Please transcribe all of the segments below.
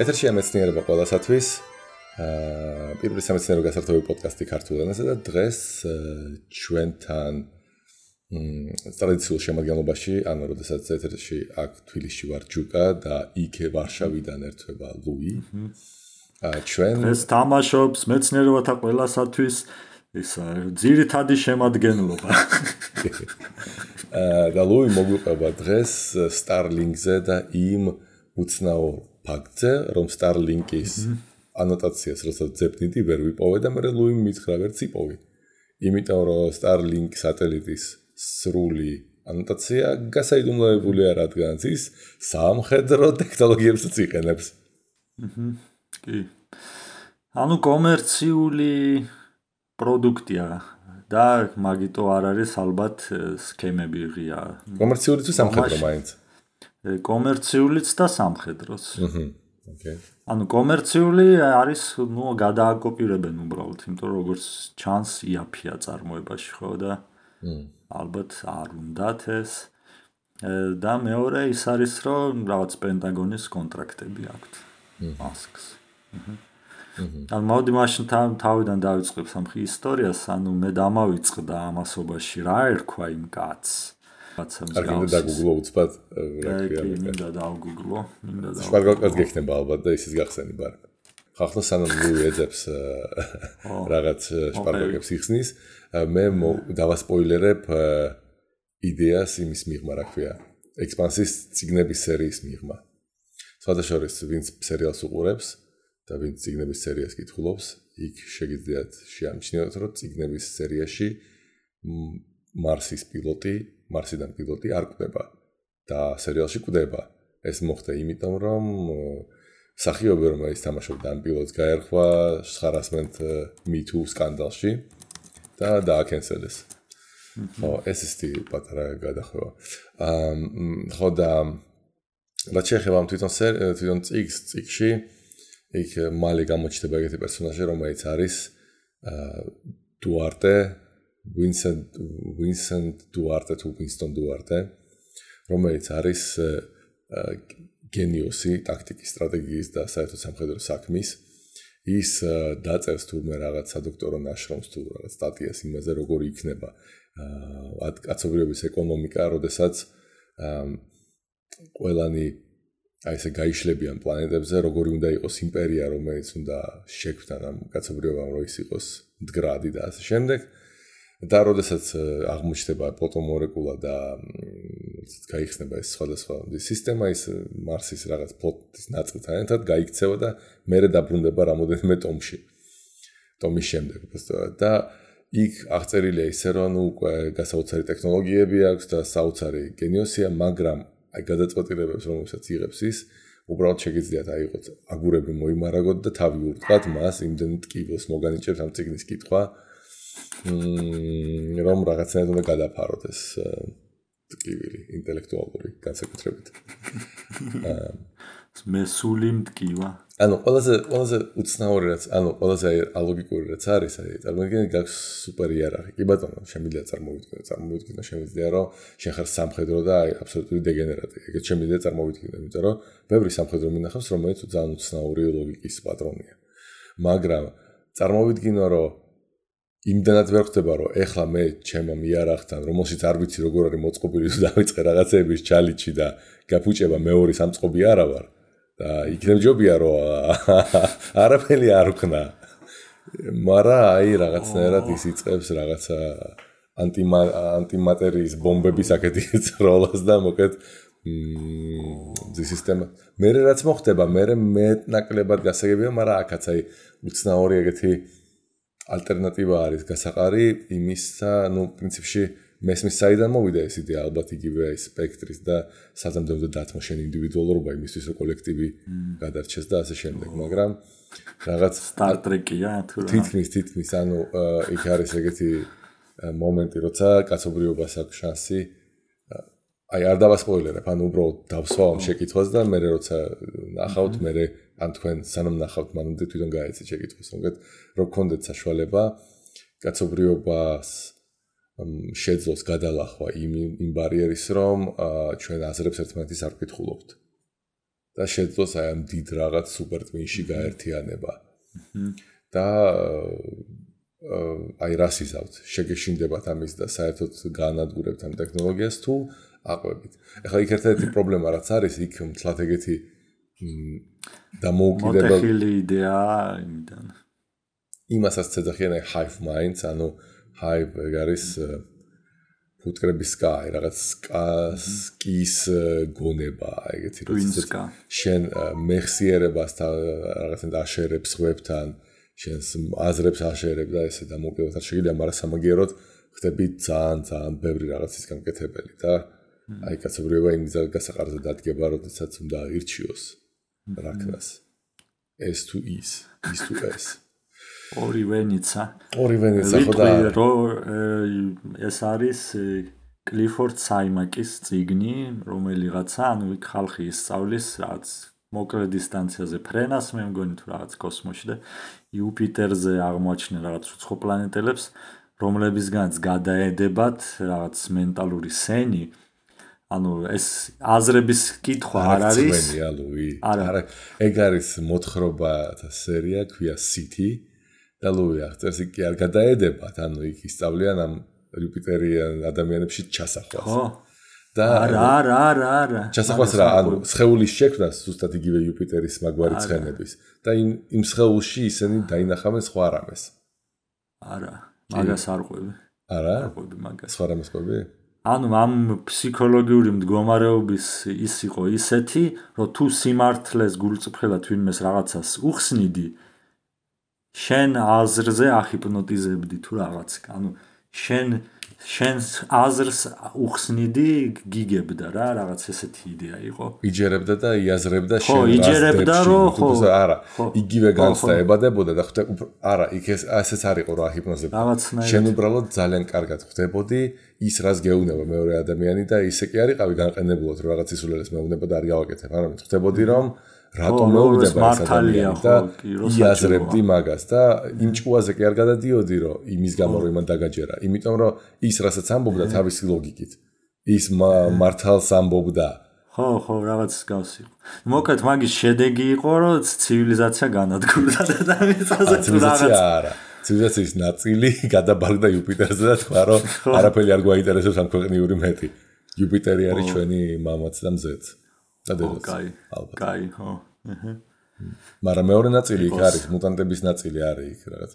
ეთერშია მეცნიერება ყველასათვის. პირველი სამეცნიერო გასართობი პოდკასტი ქართულ ენაზე და დღეს ჩვენთან ტრადიციულ შემადგენლობაში, ანუ როდესაც ეთერში აქ თბილისში ვარ ჯუკა და იქ ვარშავიდან ერთვება ლუი. დღეს თამაშობს მეცნიერებათა ყველასათვის ეს ძირითადი შემადგენლობა. და ლუი მოგვიყვება დღეს Starlink-ზე და იმ უცნაურ ფაქტზე, რომ Starlink-ის ანოტაციას როცა ძებნიდი ვერ ვიპოვე და მე ლუიმ მითხრა ვერც იპოვი. იმიტომ რომ Starlink სატელიტის სრული ანოტაცია გასაიდუმლოებულია, რადგანაც ის სამხედრო ტექნოლოგიებსაც იყენებს. კი. ანუ კომერციული პროდუქტია და მაგიტო არ არის ალბათ სქემები ღია. კომერციული თუ სამხედრო მაინც? კომერციულიც და სამხედროც. Okay. ანუ კომერციული არის, გადააკოპირებენ უბრალოდ, იმიტომ რომ როგორც ჩანს იაფია წარმოებაში, ხო და ალბათ არ უნდათ ეს. და მეორე ის არის, რომ რაღაც პენტაგონის კონტრაქტები აქვთ მასკს. ანუ მოდი მაშინ თავიდან დავიწყებ სამხი ისტორიას, ანუ მე დამავიწყდა ამასობაში რა ერქვა იმ კაცს. არ გინდა დაგუგლო უცბად რა ქვია. მინდა დავგუგლო, შპარგალკაც გექნება ალბათ და ისიც გახსენი ბარ. ხახლა სანამ ლუი ეძებს რაღაც შპარგალკებს იხსნის, მე დავასპოილერებ იდეას იმის მიღმა, რა ქვია, ექსპანსიის წიგნების სერიის მიღმა. სხვადასხვა ვინც სერიალს უყურებს და ვინც წიგნების სერიას კითხულობს, იქ შეგიძლიათ შეამჩნიოთ, რომ წიგნების სერიაში მარსიდან პილოტი არ კვდება და სერიალში კვდება. ეს მოხდა იმიტომ, რომ მსახიობი რომელიც თამაშობდა ამ პილოტს გაერხვა harassment Me Too სკანდალში და დააკენსელეს. ხო, ეს ისეთი პატარა გადახვევა. ხო და რაც შეეხება თვითონ წიგნში, იქ მალე გამოჩნდება ეგეთი პერსონაჟი, რომელიც არის დუარტე, Vincent Duarte თუ Winston Duarte, რომელიც არის გენიოსი ტაქტიკის, სტრატეგიის და საერთოდ სამხედრო საქმის. ის დაწერს თურმე რაღაც სადოქტორო ნაშრომს თუ რაღაც სტატიას იმაზე, როგორი იქნება კაცობრიობის ეკონომიკა, როდესაც ყველანი აი ესე გაიშლებიან პლანეტებზე, როგორი უნდა იყოს იმპერია, რომელიც უნდა შექმნან ამ კაცობრიობამ, რომ ის იყოს მდგრადი და ასე შემდეგ. და როდესაც აღმოჩნდება პლუტომოლეკულა და გაიხსნება ეს სხვადასხვა სისტემა, ის მარსის რაღაც ფლოტის ნაწილთან ერთად გაიქცევა და მერე დაბრუნდება რამოდენიმე ტომში. ტომის შემდეგ და იქ აღწერილია ისე, რომ უკვე გასაოცარი ტექნოლოგიები აქვს და საოცარი გენიოსია, მაგრამ აი გადაწყვეტილებებს, რომელსაც იღებს ის, უბრალოდ შეგიძლიათ აიღოთ აგურები მოიმარაგოთ და თავი ურტყათ მას იმდენ ტკივილს მოგანიჭებთ ამ წიგნის კითხვა. რომ რაღაცნაირად უნდა გადაფაროთ ეს ტკივილი ინტელექტუალური განსაკუთრებით. მესული მტკივა. ანუ ყველაზე უცნაური რაც, ყველაზე ალოგიკური რაც არის, წარმოგიდგენთ გაქვს სუპერ იერარქია. კი ბატონო, შემიძლია წარმოვიდგინო, შემიძლია რომ შენ ხარ სამხედრო და აბსოლუტური დეგენერატი. ეგეთ შემიძლია წარმოვიდგინო, იმიტომ რომ ბევრი სამხედრო მინახავს, რომელიც ძალიან უცნაური ლოგიკის პატრონია. მაგრამ წარმოვიდგინო, რომ იმდანაც ვერ ხდება, რომ ეხლა მე ჩემო იარაღთან, რომელშიც არ ვიცი როგორ არის მოწყობილი თუ დავიწყე რაღაცების ჩალიჩი და გაფუჭება მეორე სამწყობი არა ვარ და იქნებ ჯობია რომ არაფერი არ ვქნა. მაგრამ აი რაღაცნაირად ის იწყებს რაღაცა ანტიმატერიის ბომბების აქეთი წროლას და მოკეთ სისტემა. მე რაც მოხდება, მე მეტნაკლებად გასაგებია, მაგრამ აქაც აი უცნაური ეგეთი ალტერნატივა არის გასაყარი იმისა, პრინციპში მესმის საიდან მოვიდა ეს იდეა, ალბათ იგივე სპექტრის და საზამთრებლო დათმო შენ ინდივიდუალურობა იმისთვის, რომ კოლექტივი გადარჩეს და ასე შემდეგ, მაგრამ რაღაც Star Trek-ია თუ რა. თითქმის, ანუ იქ არის ეგეთი მომენტი, როცა კაცობრიობას აქვს შანსი, აი არ დავასპოილერებ, ანუ უბრალოდ დავსვა ამ შეკითხვას და მე როცა ნახავთ, მე ან თქვენ სანამ ნახავთ, მანამდე თვითონ გაეცეთ შეკითხვას, რომ გქონდეთ საშუალება კაცობრიობას შეძლოს გადალახვა იმ ბარიერის, რომ ჩვენ აზრებს ერთმანეთის არ ვკითხულობთ. და შეძლოს აი ამ დიდ რაღაც სუპერ ტვინში გაერთიანება. და აი რას იზავთ? შეგეშინდებათ ამის და საერთოდ გაანადგურებთ ამ ტექნოლოგიას თუ აყვებით. ეხლა იქ ერთ-ერთი პრობლემა რაც არის, იქ მთლად ეგეთი დამოუკიდებელ მოტეხილი იდეაა იმიდან. იმასაც ეძახიან აი hive minds, ანუ hive ეგ არის ფუტკრების სკა, რაღაც სკის გონება, ეგეთი როცა შენ მეხსიერებასთან რაღაცნაირად აშერებს ხვებთან, შენს აზრებს აშერებ და ესე დამოუკიდებლად შეიძლება, მაგრამ სამაგიეროდ ხდები ძალიან ბევრი რაღაცის გამკეთებელი და აი კაცობრიობა იმ გასაყარზე დადგება, როდესაც უნდა ირჩიოს რაკნას. S to is to S. ორივე ნიცა ხო და ეს არის კლიფორდ საიმაკის წიგნი, რომელიღაცა, ანუ იქ ხალხი ისწავლის რაღაც მოკლე დისტანციაზე ფრენას, მე მგონი თუ რაღაც კოსმოსში და იუპიტერზე აღმოაჩინენ რაღაც უცხო პლანეტელებს, რომლებისგანაც გადაედებათ რაღაც მენტალური სენი. ანუ ეს აზრების კითხვა არ არის. არა, ეგ არის მოთხრობათა სერია, ქვია City. და ლუი აღწერს კი არ გადაედებათ, ანუ იქ ისწავლიან ამ იუპიტერიან ადამიანებში ჩასახვას. ხო. და არა. ჩასახვას რა, ანუ სხეულის შექმნას ზუსტად იგივე იუპიტერის მაგვარი ცხენების და იმ სხეულში ისინი დაინახავენ სხვა რამეს. არა, მაგას არ ყვები. არა? არ ყვები მაგას. სხვა რამეს ყვები? ანუ ამ ფსიქოლოგიური მდგომარეობის ის იყო ისეთი, რომ თუ სიმართლეს გულწრფელად ვინმეს რაღაცას უხსნიდი, შენ აზრზე ახიპნოტიზებდი თუ რაღაც. ანუ შენს აზრს უხსნიდი, გიგებდა რა, რაღაც ესეთი იდეა იყო. იჯერებდა და იაზრებდა შენ რას იჯერებდა, რომ არა, იგივე განცდა ებადებოდა და არა, იქ ესეც არ იყო რა ჰიპნოზები. შენ უბრალოდ ძალიან კარგად ხვდებოდი ის რას გეუბნება მეორე ადამიანი და ისე კი არ იყავი განყენებულად რომ რაღაც ისულელეს მეუბნება და არ გავაკეთებ, არამედ ხვდებოდი რომ რატომ მეუბნება ეს ადამიანი და იაზრებდი მაგას და იმ ჭუაზე კი არ გადადიოდი რომ იმის გამო რომ იმან დაგაჯერა, იმიტომ რომ ის რასაც ამბობდა თავისი ლოგიკით ის მართალს ამბობდა. ხო, რაღაც გავს იყო. მოკლედ მაგის შედეგი იყო რომ ცივილიზაცია განადგურდა და მიწაზე თუ რაღაც არა. ცივილიზაციის ნაწილი გადაბარგდა იუპიტერზე და თქვა რომ არაფერი არ გვაინტერესებს ამ ქვეყნიური მეტი. იუპიტერი არის ჩვენი მამაც და მზეც. კაი, ხო. მაგრამ მეორე ნაწილი იქ არის, მუტანტების ნაწილი არის იქ რაღაც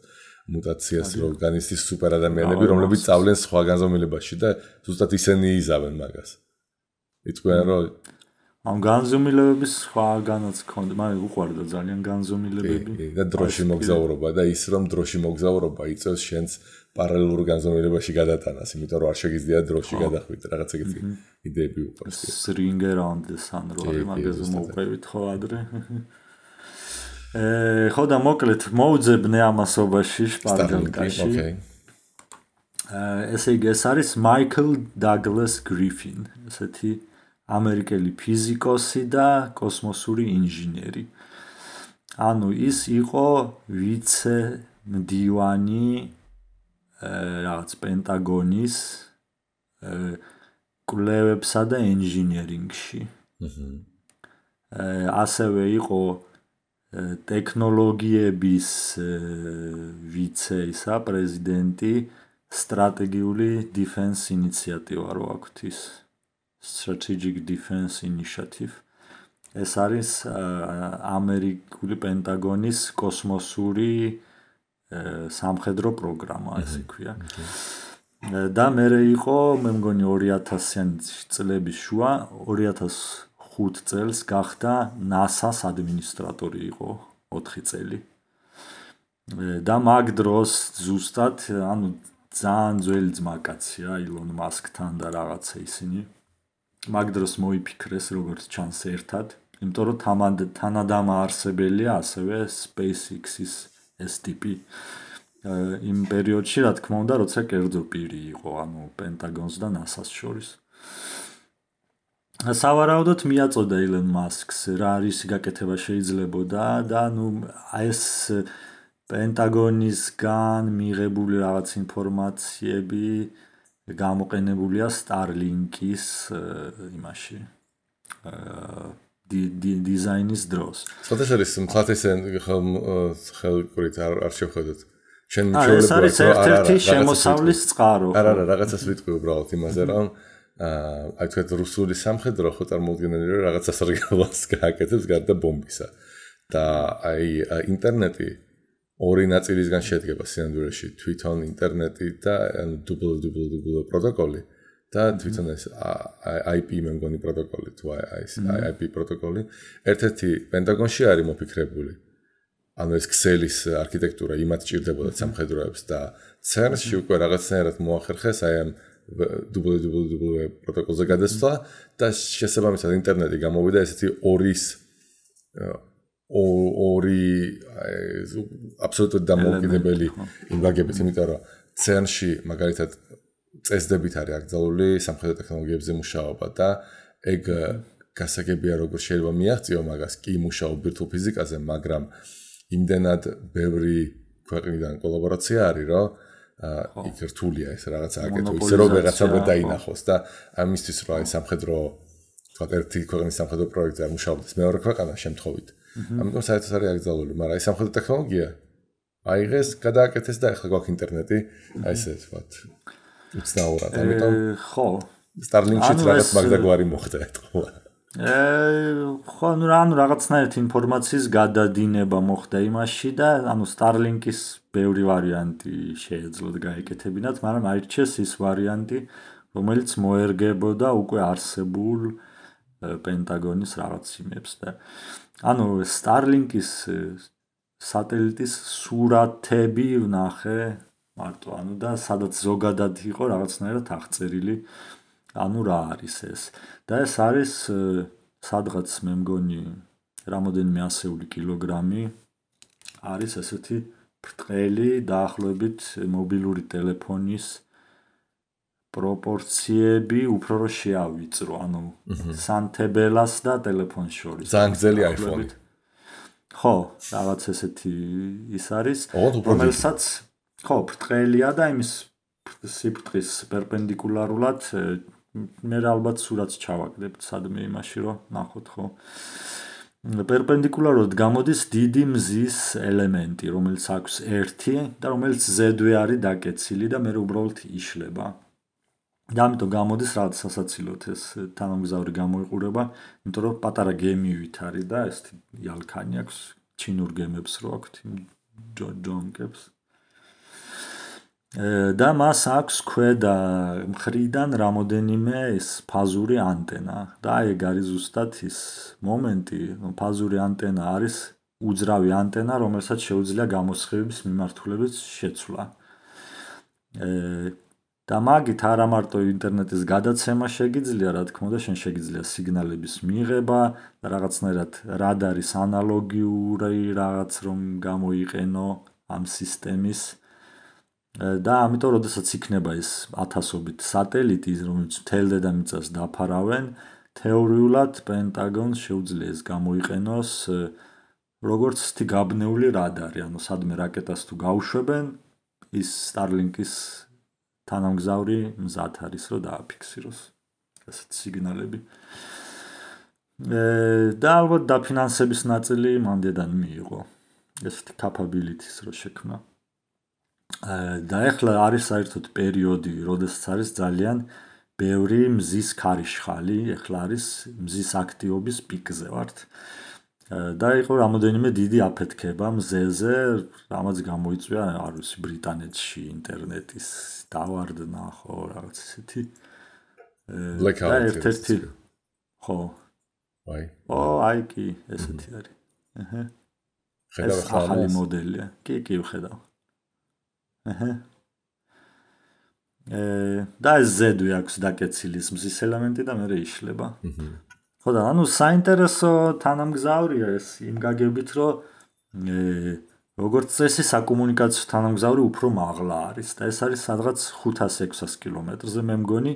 მუტაციას რო განიცდის სუპერ ადამიანები, რომლებიც წავლენ სხვა განზომილებაში და ზუსტად ისინი იზავენ მაგას. იტყვიან რომ ამ განზომილებების სხვაგანაც ქონდა, მაგრამ უყვარდა ძალიან განზომილებები. და დროში მოგზაურობა და ის რომ დროში მოგზაურობა იწევს შენს პარალელურ განზომილებაში გადატანას, იმიტომ რომ არ შეგიძლია დროში გადახვიდე, რაღაც ეგეთი იდეები უყვარს. Ring around the sun რო არის მაგაზე მოვყვებით ხო ადრე. ხო და მოკლედ მოუძებნე ამასობაში შპარგალკაში. ესე იგი ეს არის Michael Douglas Griffin, ესეთი ამერიკელი ფიზიკოსი და კოსმოსური ინჟინერი. ანუ ის იყო ვიცე მდივანი რაღაც პენტაგონის კვლევებსა და ინჟინერინგში. ასევე იყო ტექნოლოგიების ვიცე ისა პრეზიდენტი სტრატეგიული დიფენს ინიციატივა რო აქვთ ის Strategic Defense Initiative. ეს არის ამერიკული პენტაგონის კოსმოსური სამხედრო პროგრამა, ესე ქვია. და მე იყო, მე მგონი 2000-იანი წლების შუა, 2005 წელს გახდა NASA-ს ადმინისტრატორი იყო 4 წელი. და მაგ დროს ზუსტად, ანუ ძალიან ძველი ძმაკაცია Elon Musk-თან და რაღაცა ისინი. მაგ დროს მოიფიქრეს როგორც ჩანს ერთად, იმიტომ რომ თანადამაარსებელია ასევე SpaceX-ის ეს ტიპი. იმ პერიოდში, რა თქმა უნდა, როცა კერძო პირი იყო, ანუ პენტაგონს და NASA-ს შორის. სავარაუდოდ მიაწოდა Elon Musk-ს რა არის გაკეთება შეიძლებოდა და ნუ ეს პენტაგონისგან მიღებული რაღაც ინფორმაციები გამოყენებულია Starlink-ის იმაში დიზაინის დროს. სხვათა შორის მთლათესენ ხელკურით არ შევხედოთ. შენ ეს არის ერთ-ერთი შემოსავლის წყარო. არა, რაღაცას ვიტყვი უბრალოდ იმაზე, რომ აი თქვენ რუსული სამხედრო ხო წარმოუდგენელი რომ რაღაცა სარგებლობას გააკეთებს გარდა ბომბისა. და აი ინტერნეტი ორი ნაწილისგან შედგება სინამდვილეში, თვითონ ინტერნეტი და WWW პროტოკოლი და თვითონ ეს IP მე მგონი პროტოკოლი თუ IP პროტოკოლი. ერთ-ერთი პენტაგონში არის მოფიქრებული. ანუ ეს ქსელის არქიტექტურა იმათ ჭირდებოდა სამხედროებს და CERN-ში უკვე რაღაცნაირად მოახერხეს აი ამ WWW პროტოკოლზე გადასვლა და შესაბამისად ინტერნეტი გამოვიდა ესეთი ორი აბსოლუტურად დამოუკიდებელი იმბაგებით, იმიტომ რომ CERN-ში მაგალითად წესდებით არის აკრძალული სამხედრო ტექნოლოგიებზე მუშაობა და ეგ გასაგებია როგორ შეიძლება მიაღწიო მაგას კი მუშაობ ბირთვულ ფიზიკაზე, მაგრამ იმდენად ბევრი ქვეყნიდან კოლაბორაცია არის, რომ იქ რთულია ეს რაღაცა აკეთო, ისე რომ ვეღაცა ვერ დაინახოს და ამისთვის რომ აი სამხედრო თქვა ერთი ქვეყნის სამხედრო პროექტზე არ მუშაობდეს მეორე ქვეყანა შემთხვევით. ამიტომ საერთოდ არის აკრძალული, მაგრამ აი სამხედრო ტექნოლოგია აიღეს, გადააკეთეს და ახლა გვაქვს ინტერნეტი, აი ესე ვთქვათ. უცნაურად, ამიტომ ხო. Starlink-შიც რაღაც მაგდაგვარი მოხდა ეთქვა. ხო, რაღაცნაირად ინფორმაციის გადადინება მოხდა იმაში და Starlink-ის ბევრი ვარიანტი შეეძლოთ გაეკეთებინათ, მაგრამ აირჩიეს ის ვარიანტი, რომელიც მოერგებოდა უკვე არსებულ პენტაგონის რაღაც იმებს და Starlink-ის სატელიტის სურათები ვნახე მარტო, და სადაც ზოგადად იყო რაღაცნაირად აღწერილი, რა არის ეს. და ეს არის სადღაც მე მგონი რამოდენიმე ასეული კილოგრამი არის ესეთი ბრტყელი დაახლოებით მობილური ტელეფონის პროპორციები უფრო რომ შეავიწრო, სანთებელას და ტელეფონს შორის. ძალიან გრძელი iPhone. ხო, რაღაც ესეთი ის არის, რომელსაც ხო, ბრტყელია და იმის სიბრტყის პერპენდიკულარულად მე ალბათ სურათს ჩავაგდებ სადმე იმაში რომ ნახოთ ხო. პერპენდიკულარულად გამოდის დიდი მზის ელემენტი, რომელიც აქვს ერთი და რომელიც ზედვე არის დაკეცილი და მე უბრალოდ იშლება. და ამიტომ გამოდის რაღაც სასაცილოდ ეს თანამგზავრი გამოიყურება, იმიტომ რომ პატარა გემივით არის და ეს იალქანი აქვს, ჩინურ გემებს რო აქვთ, ჯონკებს. და მას აქვს ქვედა მხრიდან რამოდენიმე ეს ფაზური ანტენა და ეგ არის ზუსტად ის მომენტი, ფაზური ანტენა არის უძრავი ანტენა, რომელსაც შეუძლია გამოსხივების მიმართულებით შეცვლა. და მაგით არა მარტო ინტერნეტის გადაცემა შეგიძლია, რა თქმა უნდა, შენ შეგიძლია სიგნალების მიღება და რაღაცნაირად რადარის ანალოგიური რაღაც რომ გამოიყენო ამ სისტემის და ამიტომ როდესაც იქნება ეს ათასობით სატელიტი, რომელიც მთელ დედამიწას დაფარავენ, თეორიულად პენტაგონს შეუძლია ეს გამოიყენოს როგორც გაბნეული რადარი, სადმე რაკეტას თუ გაუშვებენ, ის Starlink-ის თანამგზავრი მზად არის რომ დააფიქსიროს ასეთ სიგნალები. და ალბათ დაფინანსების ნაწილი მანდედან მიიღო ესეთი capabilities რო შექმნა. და ეხლა არის საერთოდ პერიოდი, როდესაც არის ძალიან ბევრი მზის ქარიშხალი, ეხლა არის მზის აქტივობის პიკზე ვართ. და იყო რამოდენიმე დიდი აფეთქება მზეზე, რამაც გამოიწვია არ ვიცი ბრიტანეთში ინტერნეტის დავარდნა ხო რაღაც ესეთი. და ერთ-ერთი ხო. აი კი ესეთი არის. ხედავ ახლა ახალი მოდელია. კი ვხედავ. და ეს ზედვე აქვს დაკეცილი მზის ელემენტი და მე იშლება. ხო და საინტერესო თანამგზავრია ეს იმ გაგებით, რომ როგორც წესი საკომუნიკაციო თანამგზავრი უფრო მაღლა არის და ეს არის სადღაც 500-600 კილომეტრზე მე მგონი.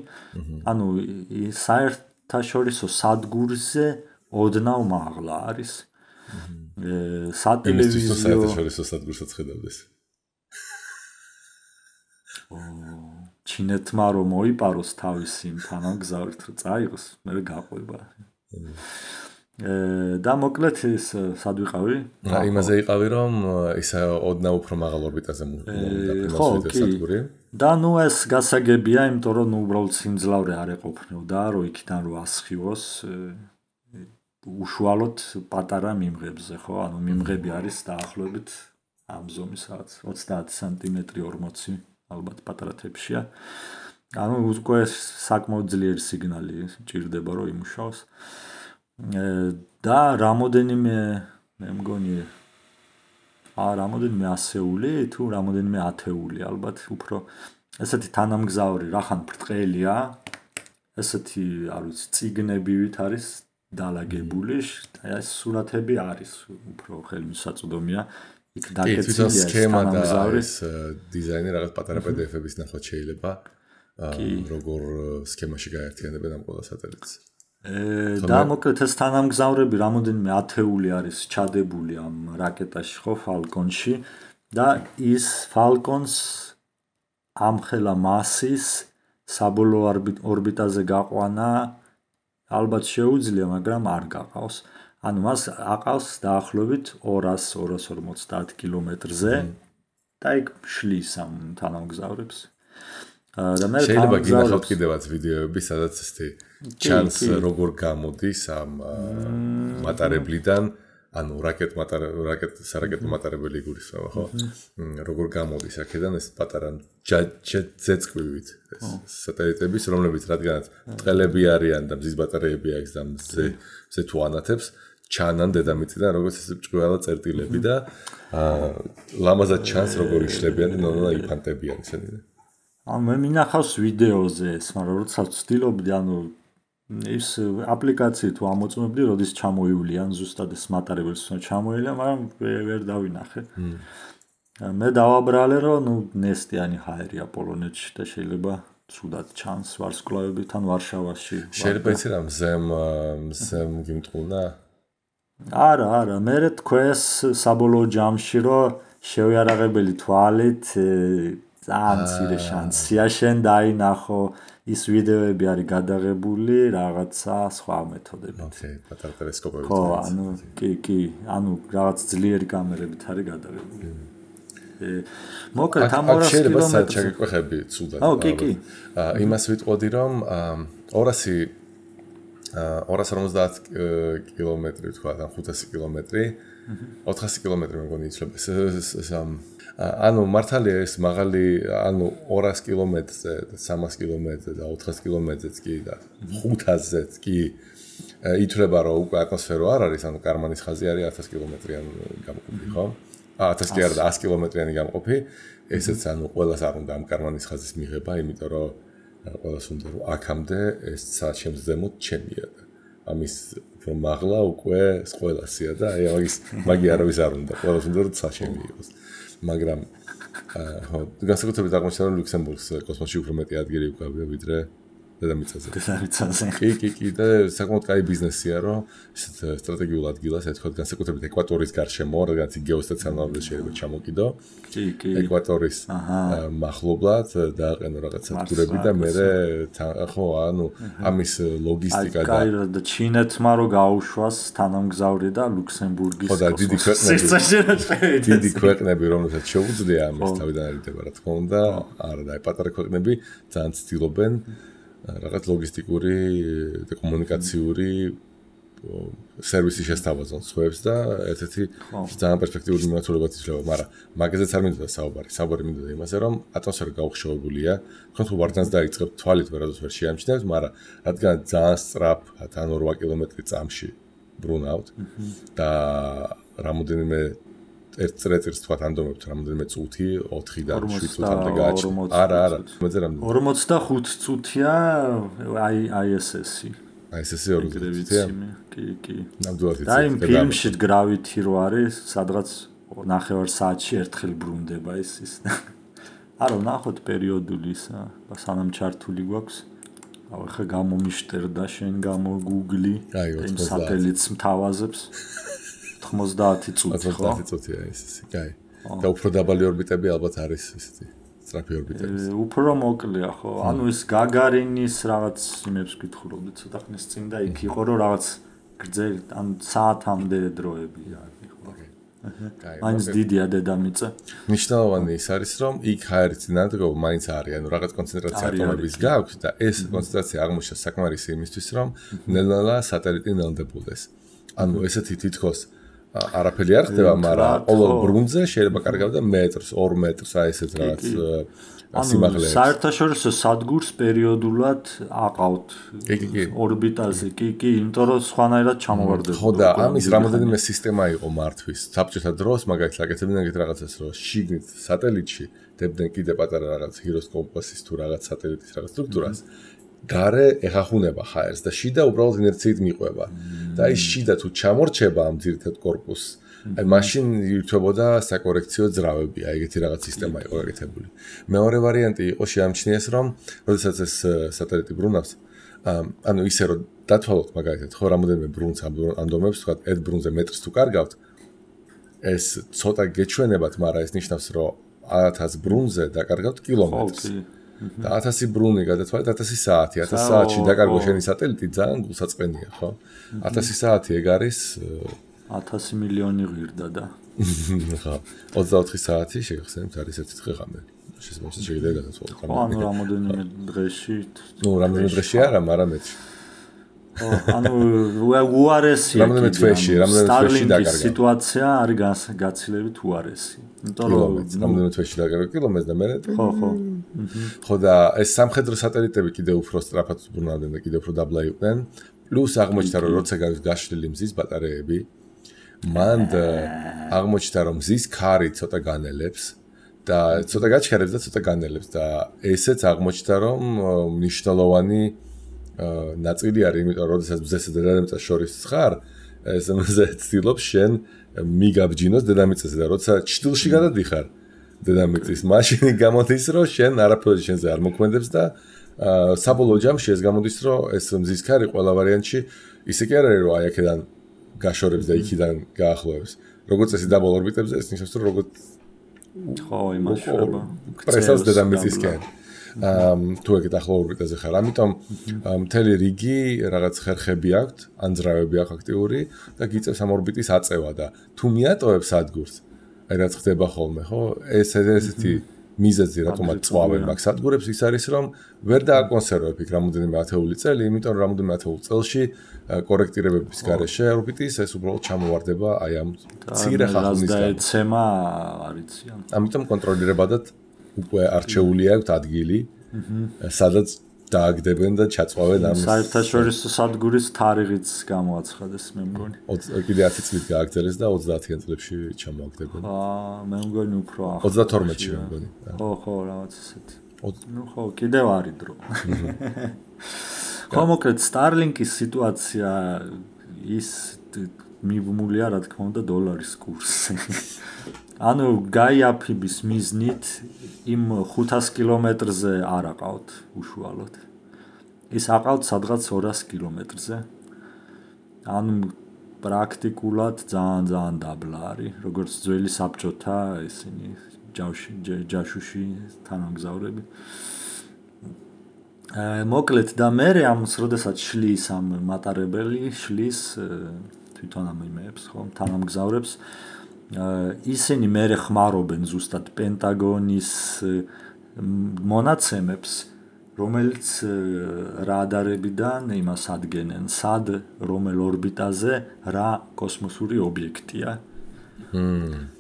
საერთაშორისო სადგურზე ოდნავ მაღლა არის. სატელევიზიო საერთაშორისო სადგურსაც ხედავდეს. ჩინეთმა რომ მოიპაროს თავისი თანამგზავრით რომ წაიღოს, მე გაყვება. და მოკლედ ის სად ვიყავი? იმაზე იყავი რომ ისა ოდნავ უფრო მაღალ ორბიტაზე მოვიდა. და ნუ ეს გასაგებია, იმიტომ რომ ნუ უბრალოდ სიმძლავრე არ ეყოფნოდა, რომ იქიდან რო ასხივოს უშუალოდ პატარა მიმღებზე, ხო? ანუ მიმღები არის დაახლოებით ამ ზომის რაღაც 30 სანტიმეტრი 40 ალბათ პატარა თეფშია. ანუ უკვე საკმაოდ ძლიერი სიგნალი ჭირდება რომ იმუშაოს. და რამოდენიმე მე მგონი რამოდენიმე ასეული თუ რამოდენიმე ათეული ალბათ უფრო ესეთი თანამგზავრი რახან ბრტყელია ესეთი არ ვიცი ციგნებივით არის დალაგებული და ეს სურათები არის უფრო ხელმისაწვდომია იქ დაკეცილია სქემა და ეს დიზაინი რაღაც პატარა PDF-ების ნახვა შეიძლება როგორ სქემაში გაერთიანებენ ამ ყველა სატელიტს და მოკლედ ეს თანამგზავრები რამოდენიმე ათეული არის ჩადებული ამ რაკეტაში ხო Falcon-ში და ის Falcon-ს ამხელა მასის საბოლოო ორბიტაზე გაყვანა ალბათ შეუძლია, მაგრამ არ გაყავს. ანუ მას აყავს დაახლოებით 200-250 კილომეტრზე და იქ შლის ამ თანამგზავრებს. და მე შეიძლება გინახავთ კიდევაც ვიდეოები, სადაც ესეთი ჩანს როგორ გამოდის ამ მატარებლიდან, ანუ სარაკეტო მატარებელი გულისხმობა, ხო? როგორ გამოდის აქედან ეს პატარა ძეწყვივით ეს სატელიტების, რომლებიც რადგანაც ბრტყელები არიან და მზის ბატარეები აქვს და მზე თუ ანათებს, ჩანან დედამიწიდან როგორც ეს ჭკუალა წერტილები და ლამაზად ჩანს როგორ იშლებიან და იფანტებიან ისინი. ანუ მე მინახავს ვიდეოზე ეს, მაგრამ როცა ვცდილობდი, ანუ ის აპლიკაციით თუ ამოწმებდი, როდის ჩამოივლიან ზუსტად ეს მატარებელს ჩამოივლიან, მაგრამ ვერ დავინახე. მე დავაბრალე, რომ ნუ ნესტიანი ჰაერია პოლონეთში და შეიძლება ცუდად ჩანს ვარსკვლავები თან ვარშავაში. შეიძლება იცი რა მზემ გიმტყუნა? არა, მე თქვენს საბოლოო ჯამში რომ შევიარაღებელი თვალით ძალიან მცირე შანსია შენ დაინახო ის ვიდეოები არის გადაღებული რაღაცა სხვა მეთოდებით. ოკეი, პატარა ტელესკოპებით. ხო, ანუ კი, ანუ რაღაც ძლიერი კამერებით არის გადაღებული. მოკლედ ამ 200 შეიძლება საჩაგეკვეხები ცუდად. კი. იმას ვიტყოდი რომ 250 კილომეტრი თქვა, ან 500 კილომეტრი, 400 კილომეტრი მეგონი იცლება ეს ანუ მართალია ეს მაღალი ანუ 200 კილომეტრზე და 300 კილომეტრზე და 400 კილომეტრზეც კი და 500-ზეც კი ითვლება რომ უკვე ატმოსფერო არ არის ანუ კარმანის ხაზი არის 1000 კილომეტრიანი გამყოფი ხო 1000 კი არა და 100 კილომეტრიანი გამყოფი ესეც ანუ ყველას არ უნდა ამ კარმანის ხაზის მიღება იმიტომ რომ ყველას უნდა რომ აქამდე ეს საჩემს ზემოთ ჩემია და ამის უფრო მაღლა უკვე ყველასია და აი მაგი არავის არ უნდა ყველას უნდა რომ საჩემი იყოს მაგრამ ხო განსაკუთრებით აღმოჩნდა რომ ლუქსემბურგს კოსმოსში უფრო მეტი ადგილი უკავია ვიდრე დედამიწაზე. კი და საკმაოდ კაი ბიზნესია რომ ისეთ სტრატეგიულ ადგილას ეთქოთ განსაკუთრებით ეკვატორის გარშემო რაღაც გეოსტაციონარულად შეიძლება ჩამოკიდო. კი. ეკვატორის მახლობლად დააყენო რაღაც სადგურები და მე ხო ანუ ამის ლოგისტიკა და ჩინეთმა რო გაუშვას თანამგზავრი და ლუქსემბურგის ხო და დიდი ქვეყნები რომელსაც შეუძლია ამას თავიდან არიდება რა თქმა უნდა არა და პატარა ქვეყნები ძალიან ცდილობენ რაღაც ლოგისტიკური და კომუნიკაციური სერვისი შესთავაზონ სხვებს და ერთ-ერთი ძალიან პერსპექტიული მიმართულებაც იძლევა, მაგრამ მაგაზეც არ მინდოდა საუბარი მინდოდა იმაზე, რომ ატმოსფერო გაუხშოვებულია, თქვენ თუ ვარდანს დაიწყებთ თვალით ვერასდროს ვერ შეამჩნევთ, მაგრამ რადგან ძალიან სწრაფად ან 8 კილომეტრი წამში ბრუნავთ და რამოდენიმე ერთ წრეწირს თქვა ანდომებთ რამოდენიმე წუთი 4-დან 7 წუთამდე გააჩნია. არა, მეძე რამდენი 45 წუთია ISS-ი. ISS-ი 40 წუთია. კი. ნამდვილად და იმ ფილმში Gravity რო არის, სადღაც 9 საათში ერთხელ ბრუნდება ის. არა, ნახოთ პერიოდული ისა, სანამ ჩართული გვაქვს. ახლა გამომიშტერდა შენ გამო Google-ი, იმ სატელიტს მთავაზებს. 90 წუთი ხო? 90 წუთია ეს. კაი. და უფრო დაბალი ორბიტები ალბათ არის ესეთი სწრაფი ორბიტები. უფრო მოკლეა ხო? ანუ ეს გაგარინის რაღაც იმებს გითხულობდი ცოტა ხნის წინ და იქ იყო რომ რაღაც გრძელი ან საათამდე დროები არის ხო. მაინც დიდია დედამიწა. მნიშვნელოვანი ის არის, რომ იქ ჰაერის წინადადება მაინც არის, ანუ რაღაც კონცენტრაცია ატომების გაქვს და ეს კონცენტრაცია აღმოჩნდა საკმარისი იმისთვის, რომ ნელ-ნელა სატელიტი ნელდებოდეს. ანუ ესეთი თითქოს არაფერი არ ხდება, მაგრამ ყოველ ბრუნზე შეიძლება კარგავდა მეტრს, 2 მეტრს, აი ესეთ რაღაც სიმაღლეებს. საერთაშორისო სადგურს პერიოდულად აყავთ ორბიტაზე, კი, იმიტომ რომ სხვანაირად ჩამოვარდება. ხო და ამის რამოდენიმე სისტემა იყო მართვის. საბჭოთა დროს მაგალითად აკეთებდნენ ეგეთ რაღაცას, რომ შიგნით სატელიტში დებდნენ კიდე პატარა რაღაც ჰიროსკოპოსის თუ რაღაც სატელიტის რაღაც სტრუქტურას. გარე ეხახუნება ჰაერს და შიდა უბრალოდ ინერციით მიყვება. და ის შიდა თუ ჩამორჩება ამ ძირითად კორპუსს, აი მაშინ ირთვებოდა საკორექციო ძრავები, აი ეგეთი რაღაც სისტემა იყო გაკეთებული. მეორე ვარიანტი იყო შეამჩნიეს, რომ როდესაც ეს სატელიტი ბრუნავს, ანუ ისე რომ დათვალოთ მაგალითად, ხო რამოდენიმე ბრუნს ამდომებს, თქვა ერთ ბრუნზე მეტრს თუ კარგავთ, ეს ცოტა გეჩვენებათ, მაგრამ ეს ნიშნავს, რომ 1000 ბრუნზე დაკარგავთ კილომეტრს. და 1000 ბრუნი გადათვალეთ 1000 საათი. 1000 საათში დაკარგო შენი სატელიტი ძალიან გულსაწყენია, ხო? 1000 საათი ეგ არის 1000 მილიონი ღირდა და ხო 24 საათი შეგახსენებთ არის ერთი დღე-ღამე. შესაძლოა შეიძლება გადათვალოთ. ანუ რამოდენიმე დღეში. ნუ რამოდენიმე დღეში არა, მაგრამ მეც. ანუ უარესი რამოდენიმე თვეში დაკარგა. სიტუაცია არის გაცილებით უარესი. იმიტომ რომ რამოდენიმე თვეში დაკარგა კილომეტრს და მე ხო. ხო და ეს სამხედრო სატელიტები კიდევ უფრო სწრაფად ბრუნავდნენ და კიდევ უფრო დაბლა იყვნენ. პლუს აღმოჩნდა რომ როცა გაშლილი მზის ბატარეები, მან აღმოჩნდა რომ მზის ქარი ცოტა განელებს და ცოტა გაჩქარებს და ცოტა განელებს და ესეც აღმოჩნდა რომ მნიშვნელოვანი ნაწილი არის, იმიტომ რომ როდესაც მზესა და დედამიწას შორის ხარ, ეს მზე ცდილობს შენ მიგაბჯინოს დედამიწაზე და როცა ჭრილში გადადიხარ დედამიწის მაშინი გამოდის რომ შენ არაფერი შენზე არ მოქმედებს და საბოლოო ჯამში ეს გამოდის რომ ეს მზის ქარი ყველა ვარიანტში ისე კი არ არის რომ აი აქედან გაშორებს და იქიდან გაახლოებს. როგორც წესი დაბოლ ორბიტებზე ეს ნიშნავს რომ როგორც ხო იმაშრება. პრესავს დედამიწისკენ. თუ ეგეთ ახლო ორბიტაზე ხარ, ამიტომ მთელი რიგი რაღაც ხერხები აქვთ, ანძრავები აქვს აქტიური და გიწევს ამ ორბიტის აწევა და თუ მიატოვებს სადგურს, აი რაც ხდება ხოლმე, ხო? ესეთი მიზეზი რატომაც წვავენ მაგ სადგურებს ის არის რომ ვერ დააკონსერვებ იქ რამოდენიმე ათეული წელი, იმიტომ რომ რამოდენიმე ათეულ წელში კორექტირებების გარეშე ორბიტის ეს უბრალოდ ჩამოვარდება აი ამ მცირე ხახუნისგან. ეცემა არიციან. ამიტომ კონტროლირებადად უკვე არჩეული აქვს ადგილი, სადაც დააგდებენ და ჩაწვავენ ამ საერთაშორისო სადგურის თარიღიც გამოაცხადეს მე მგონი. კიდე 10 წლით გააგრძელეს და 30-იან წლებში ჩამოაგდებენ. მე მგონი უფრო 32-ში მე მგონი. ხო, რაღაც ესეთი. ნუ ხო, კიდევ არის დრო. ხო, მოკლედ Starlink-ის სიტუაცია ის მიბმულია რა თქმა უნდა დოლარის კურსზე. ანუ გაიაფიბის მიზნით იმ 500 კილომეტრზე არ აყავთ უშუალოდ. ის აყავთ სადღაც 200 კილომეტრზე. ანუ პრაქტიკულად ძალიან დაბლა არის, როგორც ძველი საბჭოთა ისინი ჯაშუში თანამგზავრები. მოკლედ და მე ამს როდესაც შლის ამ მატარებელი შლის თვითონ ამ იმეებს ხო თანამგზავრებს ისინი მე ხმარობენ ზუსტად პენტაგონის მონაცემებს რომელიც რადარებიდან იმას ადგენენ სად რომელ ორბიტაზე რა კოსმოსური ობიექტია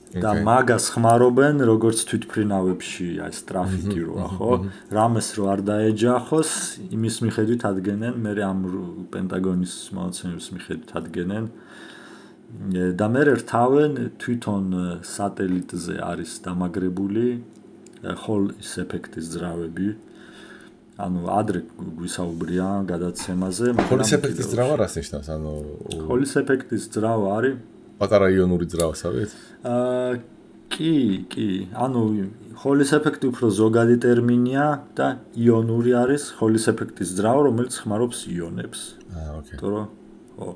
და მაგას ხმარობენ როგორც თვითფრინავებში აი ტრაფიკი როა ხო რამეს რო არ დაეჯახოს იმის მიხედვით ადგენენ მე ამ პენტაგონის მონაცემების მიხედვით ადგენენ და მე რთავენ თვითონ სატელიტზე არის დამაგრებული ჰოლის ეფექტის ძრავები ანუ ადრე გვისაუბრია გადაცემაზე ჰოლის ეფექტის ძრავა რას ნიშნავს ანუ ჰოლის ეფექტის ძრავა არის პატარა იონური ძრავასავით კი ანუ ჰოლის ეფექტი უფრო ზოგადი ტერმინია და იონური არის ჰოლის ეფექტის ძრავა რომელიც ხმარობს იონებს ოკეი თორე ხო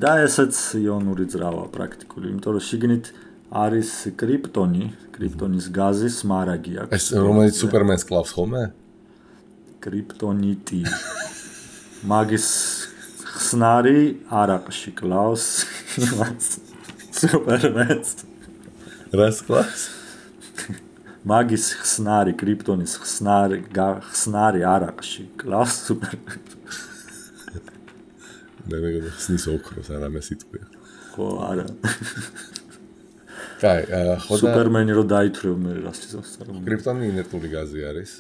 და ესეც იონური ძრავა პრაქტიკული იმიტომ რომ შიგნით არის კრიპტონის გაზის მარაგი აქვს ეს რომელიც სუპერმენს კლავს ხოლმე კრიპტონიტი მაგის ხსნარი არაყში კლავს სუპერმენს რას კლავს მაგის ხსნარი კრიპტონის ხსნარი არაყში კლავს სუპერმენს მე ხსნის ოქროს არამე სიტყვია ხო არა კაი ხო და სუპერმენი რო დაითვლევ მე რას იცავს კრიპტონი ინერტული გაზი არის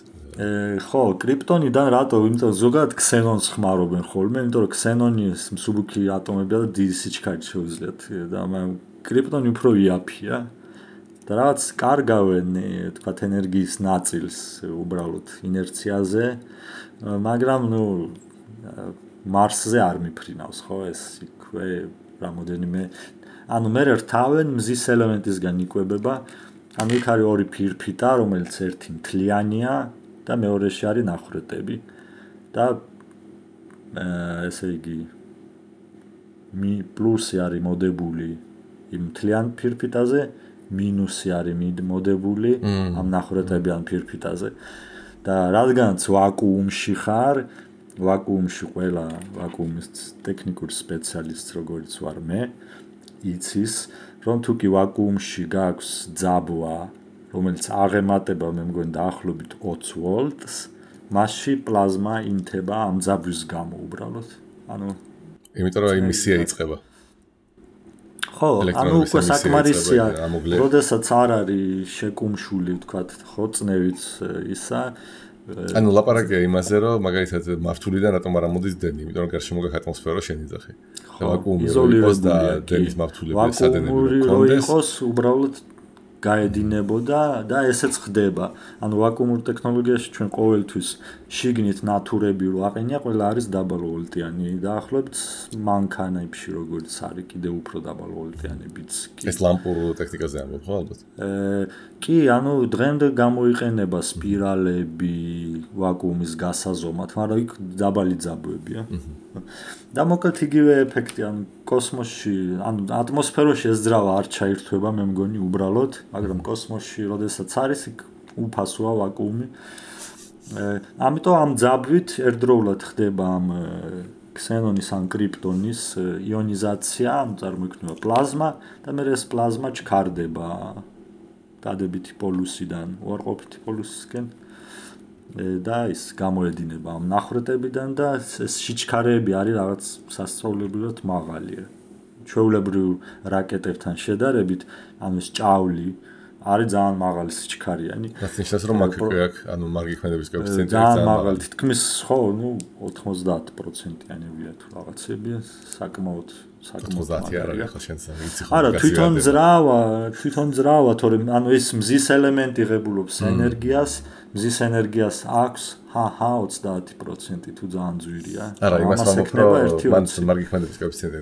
ხო კრიპტონიდან რატო იმიტომ ზოგადად ქსენონს ხმარობენ ხოლმე იმიტომ რომ ქსენონის მსუბუქი ატომებია და დიდი სიჩქარით შეუძლიათ და კრიპტონი უფრო იაფია და რაღაც კარგავენ თქვათ ენერგიის ნაწილს უბრალოდ ინერციაზე მაგრამ მარსზე არ მიფრინავს ხო ეს იქვე რამოდენიმე ანუ მე რთავენ მზის ელემენტისგან იკვებება ანუ იქ არის ორი ფირფიტა რომელიც ერთი მთლიანია და მეორეში არის ნახრეტები და ესე იგი პლუსი არის მოდებული იმ მთლიან ფირფიტაზე მინუსი არის მოდებული ამ ნახრეტებიან ფირფიტაზე და რადგანაც ვაკუუმში ხარ ვაკუუმში ყველა ვაკუუმის ტექნიკური სპეციალისტი როგორც ვარ მე იცის რომ თუ კი ვაკუუმში გაქვს ძაბვა რომელიც აღემატება მე მგონი დაახლოებით 20 ვოლტს მასში პლაზმა ინთება ამ ძაბვის გამო უბრალოდ ანუ იმიტომ რომ იმისია იწყება ხო ანუ უკვე საკმარისია როდესაც არ არის შეკუმშული ვთქვათ ხო წნევით ისა ანუ ლაპარაკია იმაზე რომ მაგალითად მართულიდან რატომ არ ამოდის დენი იმიტომ რომ გარშემო გაქვს ატმოსფერო შენიძახი და ვაკუუმი იყოს და დენის მართულები სადენები კონდეს იყოს უბრალოდ გაედინებოდა და ესეც ხდება. ანუ ვაკუუმურ ტექნოლოგიაში ჩვენ ყოველთვის შიგნით ნატურები რო აყენია, ყველა არის დაბალვოლტიანი. დაახლოებით მანქანებში როგორც არის კიდევ უფრო დაბალვოლტიანებიც. ეს ლამპურ ტექნიკაზე ამბობ ხო ალბათ? კი, ანუ დღემდე გამოიყენება სპირალები ვაკუუმის გასაზომად, მაგრამ იქ დაბალი ძაბვებია. და მოკლედ იგივე ეფექტი, ანუ კოსმოსში, ანუ ატმოსფეროში ეს ძრავა არ ჩაირთვება, მე მგონი უბრალოდ, მაგრამ კოსმოსში, როდესაც არის, იქ უფასოა ვაკუუმი. ამიტომ ამ ძაბვით ერთდროულად ხდება ამ ქსენონის ან კრიპტონის იონიზაცია, ანუ წარმოიქმნება პლაზმა და მე ეს პლაზმა ჩქარდება დადებითი პოლუსიდან უარყოფითი პოლუსისკენ და ის გამოედინება ამ ნახრეტებიდან და ეს სიჩქარეები არის რაღაც სასწაულებრივად მაღალია. ჩვეულებრივ რაკეტებთან შედარებით, ანუ ეს ჭავლი არის ძალიან მაღალი სიჩქარიანი. რაც ნიშნავს რომ აქ ანუ მარგიქმედების კოეფიციენტი ძალიან მაღალი, თითქმის ხო, 90%-იანებია თუ რაღაცებია, საკმაოდ 90 არ არის ხო შენს ვიცი ხო. არა, თვითონ ძრავა, თორემ ანუ ეს მზის ელემენტი ღებულობს ენერგიას, მზის ενέργειას აქვს 30% თუ ძალიან ძვირია. არა, იმას ვამბობ, რომ მან მარგიქმედების კოეფიციენტი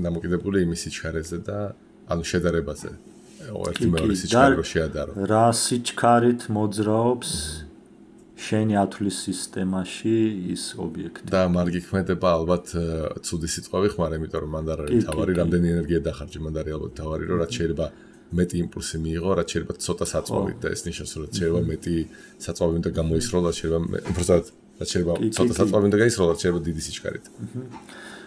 დამოკიდებული იმის სიჩქარეზე და ანუ შედარებაზე. ერთი მეორე სიჩქარე რო შეადარო. რა სიჩქარით მოძრაობს შენი ათვლის სისტემაში ის ობიექტი. და მარგიქმედება ალბათ ცუდი სიტყვები ხმარ, იმიტომ რომ მანდ არ არის თავარი, რამდენი ენერგია დახარჯე, მანდ არის ალბათ თავარი, რომ რაც შეიძლება მეტი იმპულსი მიიღო, რაც შეიძლება ცოტა საწვავით და ეს ნიშნავს, რომ შეიძლება მეტი საწვავი უნდა გამოისროლ, რაც შეიძლება უბრალოდ რაც შეიძლება ცოტა საწვავი უნდა გაისროლ, რაც შეიძლება დიდი სიჩქარით.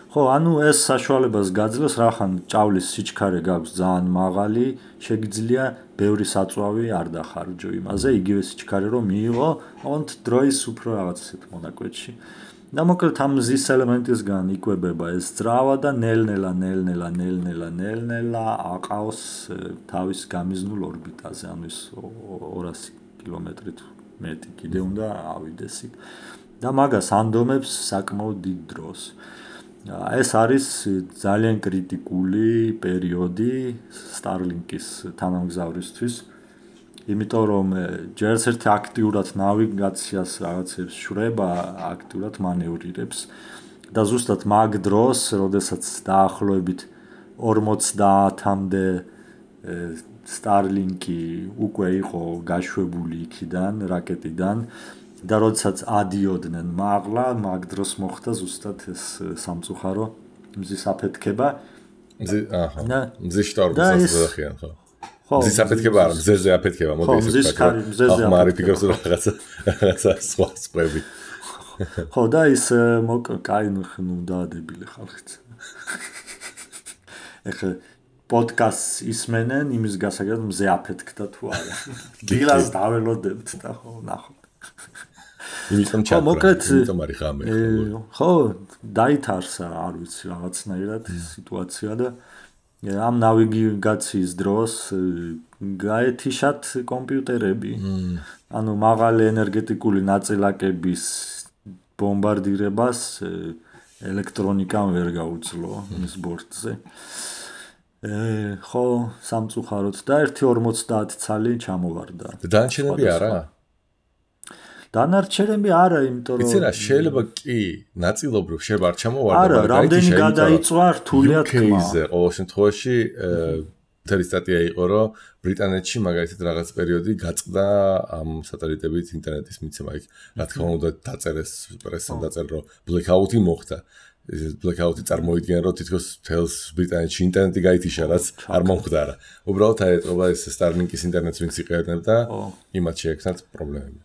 ხო, ანუ ეს საშუალებას გაძლევს, რახან ჭავლის სიჩქარე გაქვს ძალიან მაღალი, შეგიძლია ბევრი საწვავი არ დახარჯო იმაზე, იგივე სიჩქარე რომ მიიღო, ოღონდ დროის უფრო რაღაც ისეთ მონაკვეთში. და მოკლედ ამ მზის ელემენტისგან იკვებება ეს ძრავა და ნელ-ნელა აყავს თავის გამიზნულ ორბიტაზე, ანუ ის 200 კილომეტრით მეტი კიდე უნდა ავიდეს იქ. და მაგას ანდომებს საკმაოდ დიდ დროს. ეს არის ძალიან კრიტიკული პერიოდი Starlink-ის თანამგზავრისთვის, იმიტომ რომ ჯერს ერთი აქტიურად ნავიგაციას რაღაცებს შრება, აქტიურად მანევრირებს და ზუსტად მაგ დროს, როდესაც დაახლოებით 50-მდე Starlink-ი უკვე იყო გაშვებული იქიდან, რაკეტიდან და როდესაც ადიოდნენ მაღლა, მაგ დროს მოხდა ზუსტად ეს სამწუხარო მზის აფეთქება. მზის შტორმი სასწრაფოა ხო? ხო. მზის აფეთქება არა, მზეზე აფეთქება, მოდი ისე ვთქვა. ხო, მზეზე აფეთქება. ახლა მარი ფიქრობს რომ რაღაცა სხვა სპები. ხო და ის კაი ნუ დაადებილი ხალხიც. ეხლა პოდკასტს ისმენენ იმის გასაგებად მზე აფეთქდა თუ არა. დილას დაველოდებთ და ხო ნახოთ. იმიტომ ჩაკრა, იმიტომ არის ღამე. ხო, დაითარსა, არ ვიცი, რაღაცნაირად სიტუაცია და ამ ნავიგაციის დროს გაეთიშათ კომპიუტერები. ანუ მაღალი ენერგეტიკული ნაწილაკების ბომბარდირებას ელექტრონიკამ ვერ გაუძლო მის ბორტზე. ხო, სამწუხაროდ და 1.50 ცალი ჩამოვარდა. დანარჩენები არა? დანარჩენები არა, იმიტომ რომ იცი რა, შეიძლება კი ნაწილობრივ შეიძლება არ ჩამოვარდა, მაგრამ რამდენი გადაიწვა რთულია თქმა. UK-ზე ყოველ შემთხვევაში მთელი სტატია იყო, რომ ბრიტანეთში მაგალითად რაღაც პერიოდი გაწყდა ამ სატელიტებით ინტერნეტის მიცემა. რა თქმა უნდა დაწერეს პრესამ დაწერა, რომ blackout-ი მოხდა. blackout-ი წარმოიდგენა, რომ თითქოს თელს ბრიტანეთში ინტერნეტი გაითიშა, რაც არ მომხდარა. უბრალოდ აეტყობა ეს Starlink-ის ინტერნეტს ვინც იყენებდა, იმათ შეექმნათ პრობლემები.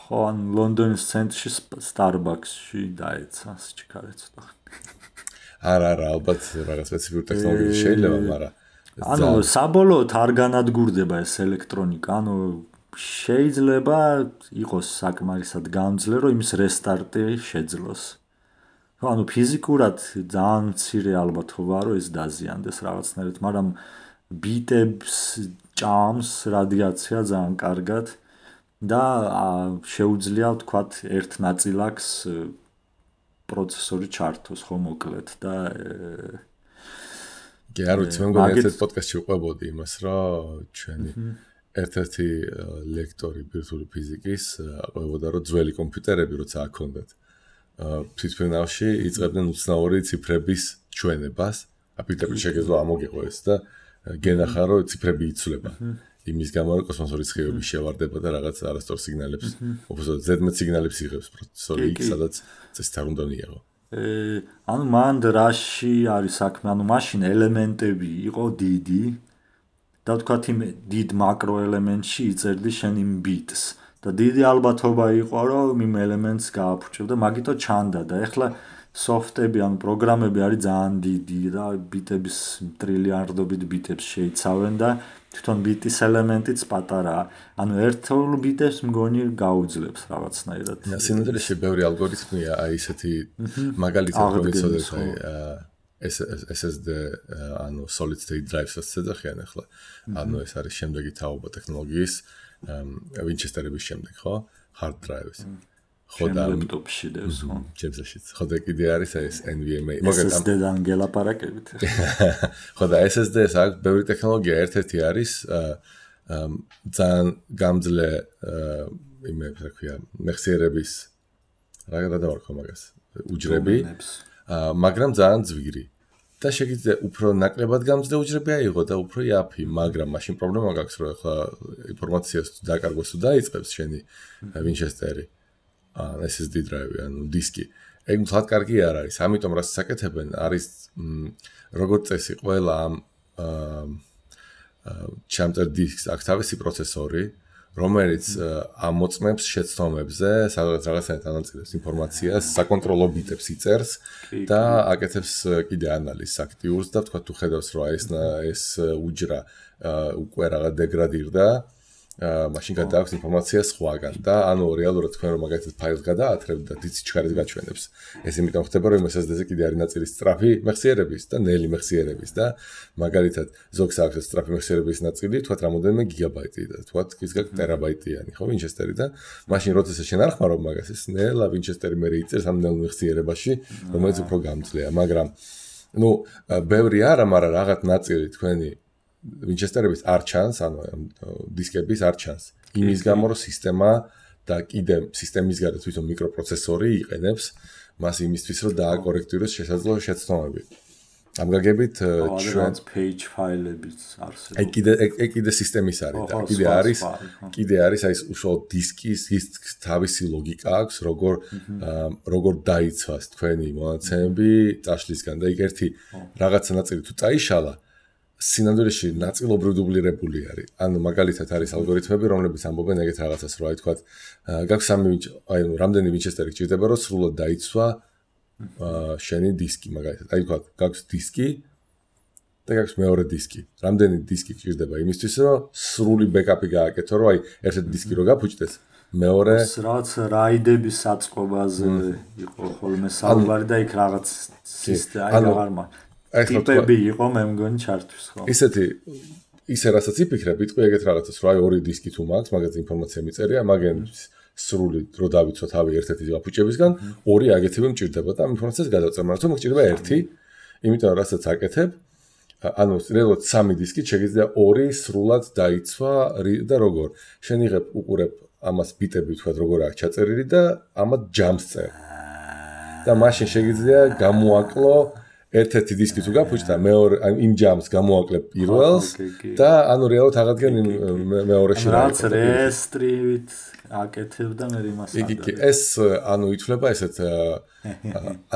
ხო, ან ლონდონის ცენტრში Starbucks-ში დაეცა სიჩქარე ცოტა. არა, ალბათ რაღაც სპეციფიკური ტექნოლოგია შეიძლება, მაგრამ ანუ საბოლოოდ არ განადგურდება ეს ელექტრონიკა, ანუ შეიძლება იყოს საკმარისად გამძლე, რომ იმის რესტარტი შეძლოს. ანუ ფიზიკურად ძალიან მცირე ალბათობაა, რომ ეს დაზიანდეს რაღაცნაირად, მაგრამ ბიტებს ჭამს რადიაცია ძალიან კარგად და შეუძლია ვთქვათ ერთ ნაწილაკს პროცესორი ჩართოს ხო მოკლედ და კი არ ვიცი, მე მგონი ერთ პოდკასტში ვყვებოდი იმას, რომ ჩვენი ერთ-ერთი ლექტორი ბირთვული ფიზიკის ყვებოდა, რომ ძველი კომპიუტერები როცა აქონდათ თვითმფრინავში იწყებდნენ უცნაური ციფრების ჩვენებას, აპირდაპირ შეგეძლო ამოგიყო ეს და გენახა რომ ციფრები იცვლება. იმის გამო რომ კოსმოსური ცხივები შევარდება და რაღაც არასწორ სიგნალებს, უბრალოდ ზედმეტ სიგნალებს იღებს პროცესორი X, სადაც წესით არ უნდა მიიღო. ანუ მან რაში არის საქმე, ანუ მაშინ ელემენტები იყო დიდი და ვთქვათ იმ დიდ მაკრო ელემენტში იწერდი შენ იმ ბიტს. და დიდი ალბათობა იყო, რომ იმ ელემენტს გააფუჭებ და მაგითო ჩანდა და ეხლა სოფტები ან პროგრამები არის ძალიან დიდი და ბიტების ტრილიარდობით ბიტებს შეიცავენ და თვითონ ბიტის ელემენტიც პატარაა. ანუ ერთეულ ბიტებს მგონი გაუძლებს რაღაცნაირად. სინამდვილეში ბევრი ალგორითმია, აი ესეთი მაგალითად რომ იცოდეთ SSD ანუ solid state drives-ს ეძახიან ახლა. ანუ ეს არის შემდეგი თაობა ტექნოლოგიის Winchester-ების შემდეგ, ხო? Hard drives. ხო და ლეპტოპში დევს, ხო? ჩემსაშიც. ხო და კიდე არის ეს NVMe. SSD-დან გელაპარაკებით. ხო და SSD-ს აქვს ბევრი ტექნოლოგია, ერთ-ერთი არის ძალიან გამძლე იმებს, რა ქვია, მეხსიერების რა გადავარქვა მაგას, უჯრები, მაგრამ ძალიან ძვირი. და შეგიძლია უფრო ნაკლებად გამძლე უჯრები აიღო და უფრო იაფი, მაგრამ მაშინ პრობლემა გაქვს, რომ ახლა ინფორმაციას თუ დაკარგვას თუ დაიწყებს შენი Winchester-ი, SSD drive-ი, ანუ დისკი. ეგ მთლად კარგი არ არის. ამიტომ რაც საკეთებენ, არის როგორც წესი ყველა ამ ჩამწერ დისკს აქვს თავისი პროცესორი, რომელიც ამოწმებს შეცდომებზე, სადაც რაღაცნაირად ანაწილებს ინფორმაციას, საკონტროლო ბიტებს იწერს და აკეთებს კიდე ანალიზს აქტიურს და თქვა თუ ხედავს რომ ეს უჯრა უკვე რაღაც დეგრადირდა, მაშინ გადააქვს ინფორმაცია სხვაგან და ანუ რეალურად თქვენ რომ მაგალითად ფაილს გადაათრებთ და დიცი ჩქარით გაჩვენებს. ეს იმიტომ ხდება რომ SSD-ზე კიდე არის ნაწილი სწრაფი მეხსიერების და ნელი მეხსიერების და მაგალითად ზოგს აქვს სწრაფი მეხსიერების ნაწილი, თქვათ რამოდენიმე გიგაბაიტი და თქვათ ისგან ტერაბაიტიანი, ხო, Winchester-ი და მაშინ როდესაც შენ არ ხმარობ მაგას, ეს ნელა Winchester-ი მე იწერს ამ ნელ მეხსიერებაში, რომელიც უფრო გამძლეა, მაგრამ ნუ ბევრი არა, მაგრამ რაღაც ნაწილი თქვენი Winchester-ების არ ჩანს, ანუ დისკების არ ჩანს. იმის გამო რომ სისტემა და კიდე სისტემის გარეთ თვითონ მიკროპროცესორი იყენებს მას იმისთვის რომ დააკორექტიროს შესაძლო შეცდომები. ამ გაგებით ჩვენ page file-ებიც არსებობს. ეგ კიდე სისტემის არის და კიდე არის აი უშუალოდ დისკის თავისი ლოგიკა აქვს, როგორ დაიცვას თქვენი მონაცემები წაშლისგან და იქ ერთი რაღაცა ნაწილი თუ წაიშალა სინამდვილეში ნაწილობრივ დუბლირებული არის. ანუ მაგალითად არის ალგორითმები, რომლებიც ამბობენ ეგეთ რაღაცას, რომ აი თქვა, გაქვს რამდენი ვინჩესტერი გჭირდება, რომ სრულად დაიცვა შენი დისკი, მაგალითად. აი თქვა, გაქვს დისკი და გაქვს მეორე დისკი. რამდენი დისკი გჭირდება იმისთვის, რომ სრული ბექაპი გააკეთო, რომ აი ერთ-ერთი დისკი რო გაფუჭდეს, მეორე რაღაც რაიდების საწყობაზე იყო ხოლმე საუბარი და იქ რაღაც სისტემა ტიპები იყო მე მგონი ჩართვის ხო ისე რასაც იფიქრებ იტყვი ეგეთ რაღაცას რომ აი ორი დისკი თუ მაქვს მაგაზე ინფორმაცია მიწერია მაგენ სრული დრო დავიცვა თავი ერთ-ერთი გაფუჭებისგან ორი აგეთები მჭირდება და ამ ინფორმაციას გადავწერ მაგრამ თუ მჭირდება ერთი იმიტომ რომ რასაც აკეთებ ანუ რეალურად სამი დისკი შეიძლება ორი სრულად დაიცვა და როგორ შენ იღებ უყურებ ამას ბიტები თქვა როგორ აქვს ჩაწერილი და ამათ ჯამს წერ და მაშინ შეიძლება გამოაკლო ერთ-ერთი დისკი თუ გაფუჭდა მეორე იმ ჯამს გამოაკლებ პირველს და ანუ რეალურად აღადგენ მეორეში რაც რესტრივით აკეთებ და მე იმას ეს ანუ ითვლება ესეთ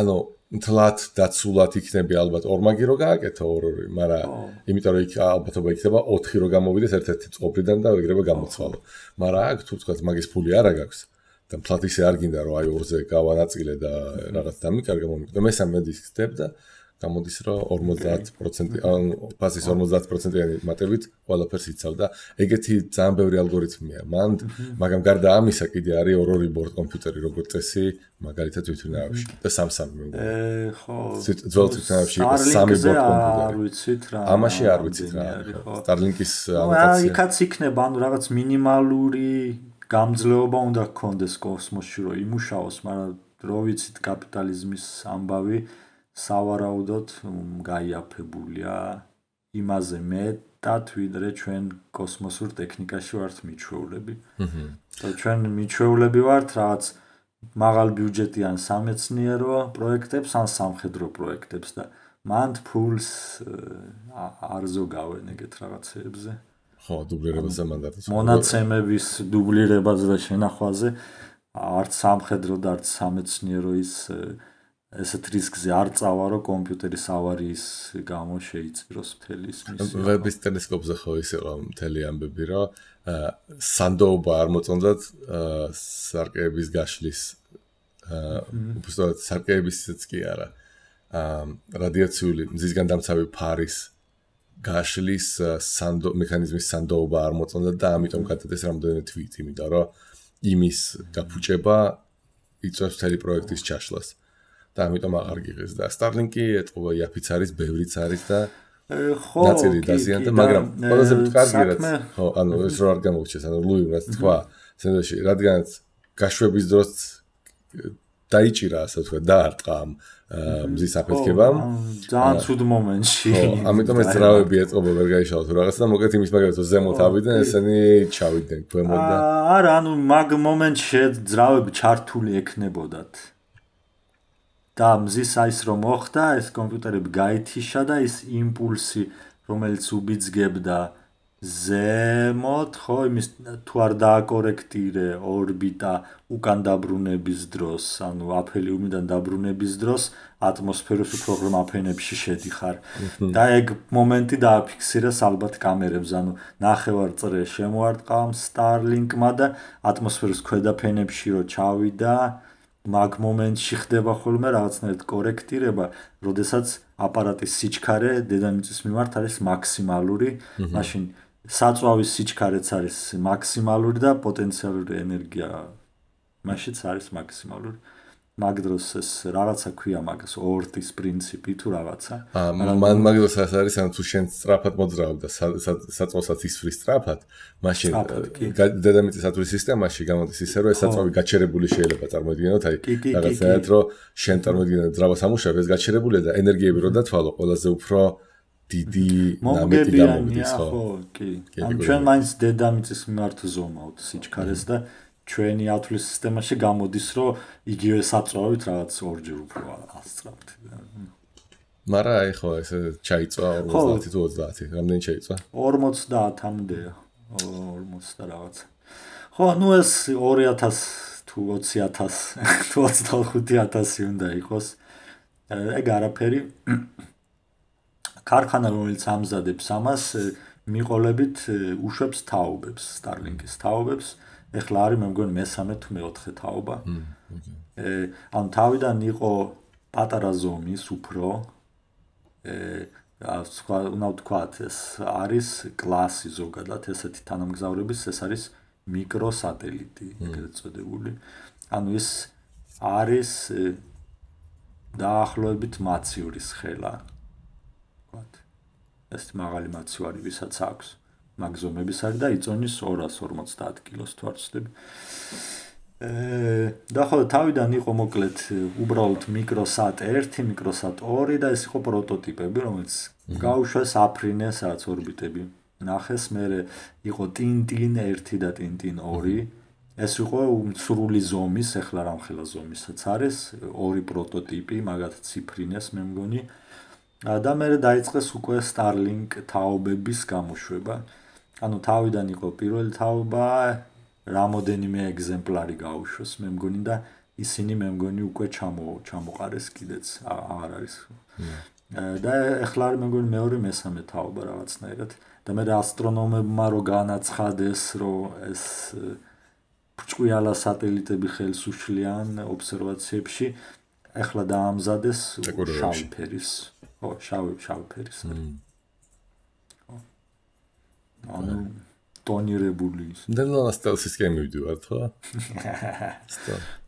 ანუ თლათ დაცულად იქნები ალბათ ორმაგი რო გააკეთო ორი მაგრამ იმიტომ რომ იქ ალბათობა იქნება 4 რო გამოვიდეს ერთ-ერთი წყობრიდან და ეგრევე გამოცვალო მაგრამ აქ თუ თქვა მაგის ფული არა გაქვს და თლათ ისე არ გინდა რომ აი ორზე გავანაწილე და რაღაც დამიკარგა მომიგდო მესამე დისკს დებ და გამოდის რომ 50% ან ფასის 50%-იანი მატებით ყველაფერს იცავ და ეგეთი ძალიან ბევრი ალგორითმია. მაგრამ გარდა ამისა კიდე არის ორი ბორდ კომპიუტერი როგორც წესი, მაგალითად თვითნავში და სამ-სამი მე მგონი. ხო. ძველ თვითნავში იყო სამი ბორდ კომპიუტერი. არ ვიცით რა. ამაში არ ვიცით რა. Starlink-ის ანოტაცია. იქაც იქნება ანუ რაღაც მინიმალური გამძლეობა უნდა გქონდეს კოსმოსში რომ იმუშაოს, მაგრამ რო ვიცით კაპიტალიზმის ამბავი სავარაუდოდ გაიაფებულია იმაზე მეტად ვიდრე ჩვენ კოსმოსურ ტექნიკაში ვართ მიჩვეულები. და ჩვენ მიჩვეულები ვართ რაღაც მაღალ ბიუჯეტიან სამეცნიერო პროექტებს ან სამხედრო პროექტებს და მანდ ფულს არ ზოგავენ ეგეთ რაღაცებზე. ხო, დუბლირებაზე მანდატს. მონაცემების დუბლირებაზე და შენახვაზე არც სამხედრო და არც სამეცნიერო ესეთ რისკზე არ წავა რომ კომპიუტერის ავარიის გამო შეიწიროს მთელი ის მისია. ვების ტელესკოპზე ხო ის იყო მთელი ამბები რომ სანდოობა არ მოწონდათ სარკეების გაშლის უბრალოდ სარკეებისიც კი არა. რადიაციული მზისგან დამცავი ფარის გაშლის მექანიზმის სანდოობა არ მოწონდათ და ამიტომ გადადეს რამდენიმე თვით, იმიტომ რომ იმის გაფუჭება იწვევს მთელი პროექტის ჩაშლას. და ამიტომ აღარ გიღეს და Starlink-ი ეთყობა იაფიც არის, ბევრიც არის და ხო, ნაწილი დაზიანდა, მაგრამ ყველაზე კარგი რაც ხო, ანუ ეს რო არ გამოვჩეს, ანუ ლუიმ რაც თქვა, სენდოში, რადგანაც გაშვების დროს დაიჭირა, ასე ვთქვა, დაარტყა მზის აფეთქებამ. ძალიან ცუდ მომენტში. ხო, ამიტომ ეს ძრავები ეთყობა ვერ გაიშალოთ რაღაცა და მოკეთ იმის მაგალითად რომ ზემოთ ავიდნენ, ესენი ჩავიდნენ ქვემოთ და არა, ანუ მაგ მომენტში ძრავები ჩართული ექნებოდათ. და მზის აის რომ მოხდა, ეს კომპიუტერები გაითიშა და ის იმპულსი, რომელიც უბიძგებდა ზემოთ, ხო, იმის თუ არ დააკორექტირე ორბიტა უკან დაბრუნების დროს, ანუ აფელიუმიდან დაბრუნების დროს ატმოსფეროს უფრო ღრმა ფენებში შედიხარ. და ეგ მომენტი დააფიქსირეს ალბათ კამერებს, ანუ ნახევარწრე შემოარტყა Starlink-მა და ატმოსფეროს ქვედა ფენებში რო ჩავიდა მაგ მომენტში ხდება ხოლმე რაღაცნაირად კორექტირება, როდესაც აპარატის სიჩქარე დედამიწის მიმართ არის მაქსიმალური, მაშინ საწვავის სიჩქარეც არის მაქსიმალური და პოტენციალური ენერგია მაშინაც არის მაქსიმალური. მაგ დროს ეს რაღაცა ქვია მაგას ორტის პრინციპი თუ რაღაცა. მან მაგ დროს არის ანუ თუ შენ სწრაფად მოძრავ და საწვავსაც ისვრის სწრაფად, მაშინ დედამიწის ათვლის სისტემაში გამოდის ისე რომ ეს საწვავი გაჩერებული შეიძლება წარმოიდგინოთ, აი რაღაცნაირად რომ შენ წარმოიდგინე ძრავას ამუშავებ, ეს გაჩერებულია და ენერგიები რო დათვალო, ყველაზე უფრო დიდი ნამეტი გამოვიდეს, ხო? ხო, კი. ან ჩვენ მაინც დედამიწის მიმართ ზომავთ სიჩქარეს და ჩვენი ათვლის სისტემაში გამოდის, რომ იგივე საწვავით რაღაც ორჯერ უფრო ასწრაფთ. მაგრამ აი ხო, ეს ჩაიწვა 50 თუ 30, რამდენი ჩაიწვა? 50-მდეა. 40 და რაღაც. ხო, ნუ ეს 2000 თუ 20000 თუ 25000 უნდა იყოს. ეგ არაფერი. ქარხანა რომელიც ამზადებს ამას მიყოლებით უშვებს თაობებს Starlink-ის თაობებს ეხლა არის მე მგონი მესამე თუ მეოთხე თაობა ანუ თავიდან იყო პატარა ზომის უფრო უნდა ვთქვათ ეს არის კლასი ზოგადად ესეთი თანამგზავრების ეს არის მიკროსატელიტი ეგრეთ წოდებული ანუ ის არის დაახლოებით მაცივრის ხელა ვთქვათ ეს მაღალი მაცივარი ვისაც აქვს მაგზომების არის და იწონის 250 კილოს თუ არ ვცდები და ხო თავიდან იყო მოკლედ უბრალოდ მიკროსატ 1, მიკროსატ 2 და ეს იყო პროტოტიპები, რომელიც გაუშვეს აფრინეს რაც ორბიტები. ნახეს, მერე იყო ტინტინ 1 და ტინტინ 2. ეს იყო სრული ზომის, ეხლა რამხელა ზომისაც არის, ორი პროტოტიპი, მაგათ ციფრინეს მე მგონი. და მერე დაიწყეს უკვე Starlink თაობების გამოშვება. ანუ თავიდან იყო პირველი თაობა რამოდენიმე ეგზემპლარი გაუშვეს მე მგონი და ისინი მე მგონი უკვე ჩამოყარეს კიდეც აღარ არის და ეხლა მე მგონი მეორე მესამე თაობა რაღაცნაირად და მე ასტრონომებმა რო განაცხადეს რომ ეს ბრჭყვიალა სატელიტები ხელს უშლიან ობსერვაციებში ეხლა დაამზადეს შავი ფერის შავი ფერის ანუ ტონირებული ის. და სტელსის გემი ვიდივართ, ხო?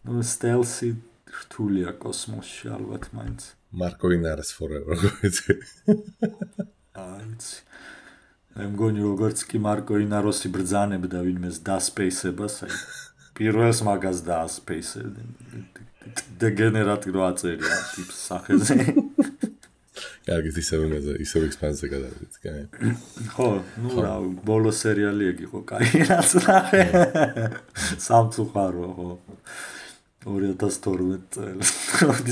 ნუ სტელსი რთულია კოსმოსში ალბათ მაინც. მარკო ინარეს forever გოიცი. აიცი. მე მგონი როგორც კი მარკო ინაროსი ბრძანებდა ვინმეს დასპეისებას, აი პირველს მაგას დაასპეისებდა. დეგენერატი რო აწერია ტიპს სახეზე. კარგით ისევ ექსპანსია გადავიდეთ, კაი. ხო, ნუ რა, ბოლო სერიალი ეგ იყო, კაი რაც ნახე. სამწუხარო, ხო. 2012 წელს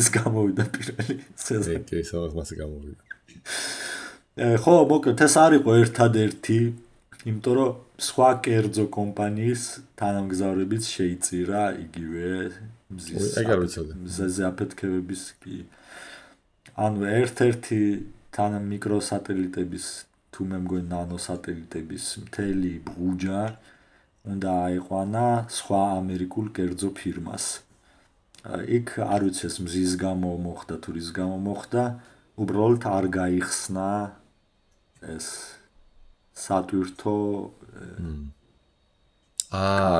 ის გამოვიდა პირველი სეზონი. ეკი, სადაც მასე გამოვიდა. ხო, მოკლედ ეს არ იყო ერთადერთი, იმიტომ რომ სხვა კერძო კომპანიის თანამგზავრებიც შეიწირა იგივე მზეზე აფეთქებების კი ანუ ერთ-ერთი მიკროსატელიტების თუ მე მგონი ნანოსატელიტების მთელი ბუჯა უნდა აიყვანა სხვა ამერიკულ კერძო ფირმას. იქ არ ვიცი ეს მზის გამო მოხდა თუ რის გამო მოხდა, უბრალოდ არ გაიხსნა ეს სატვირთო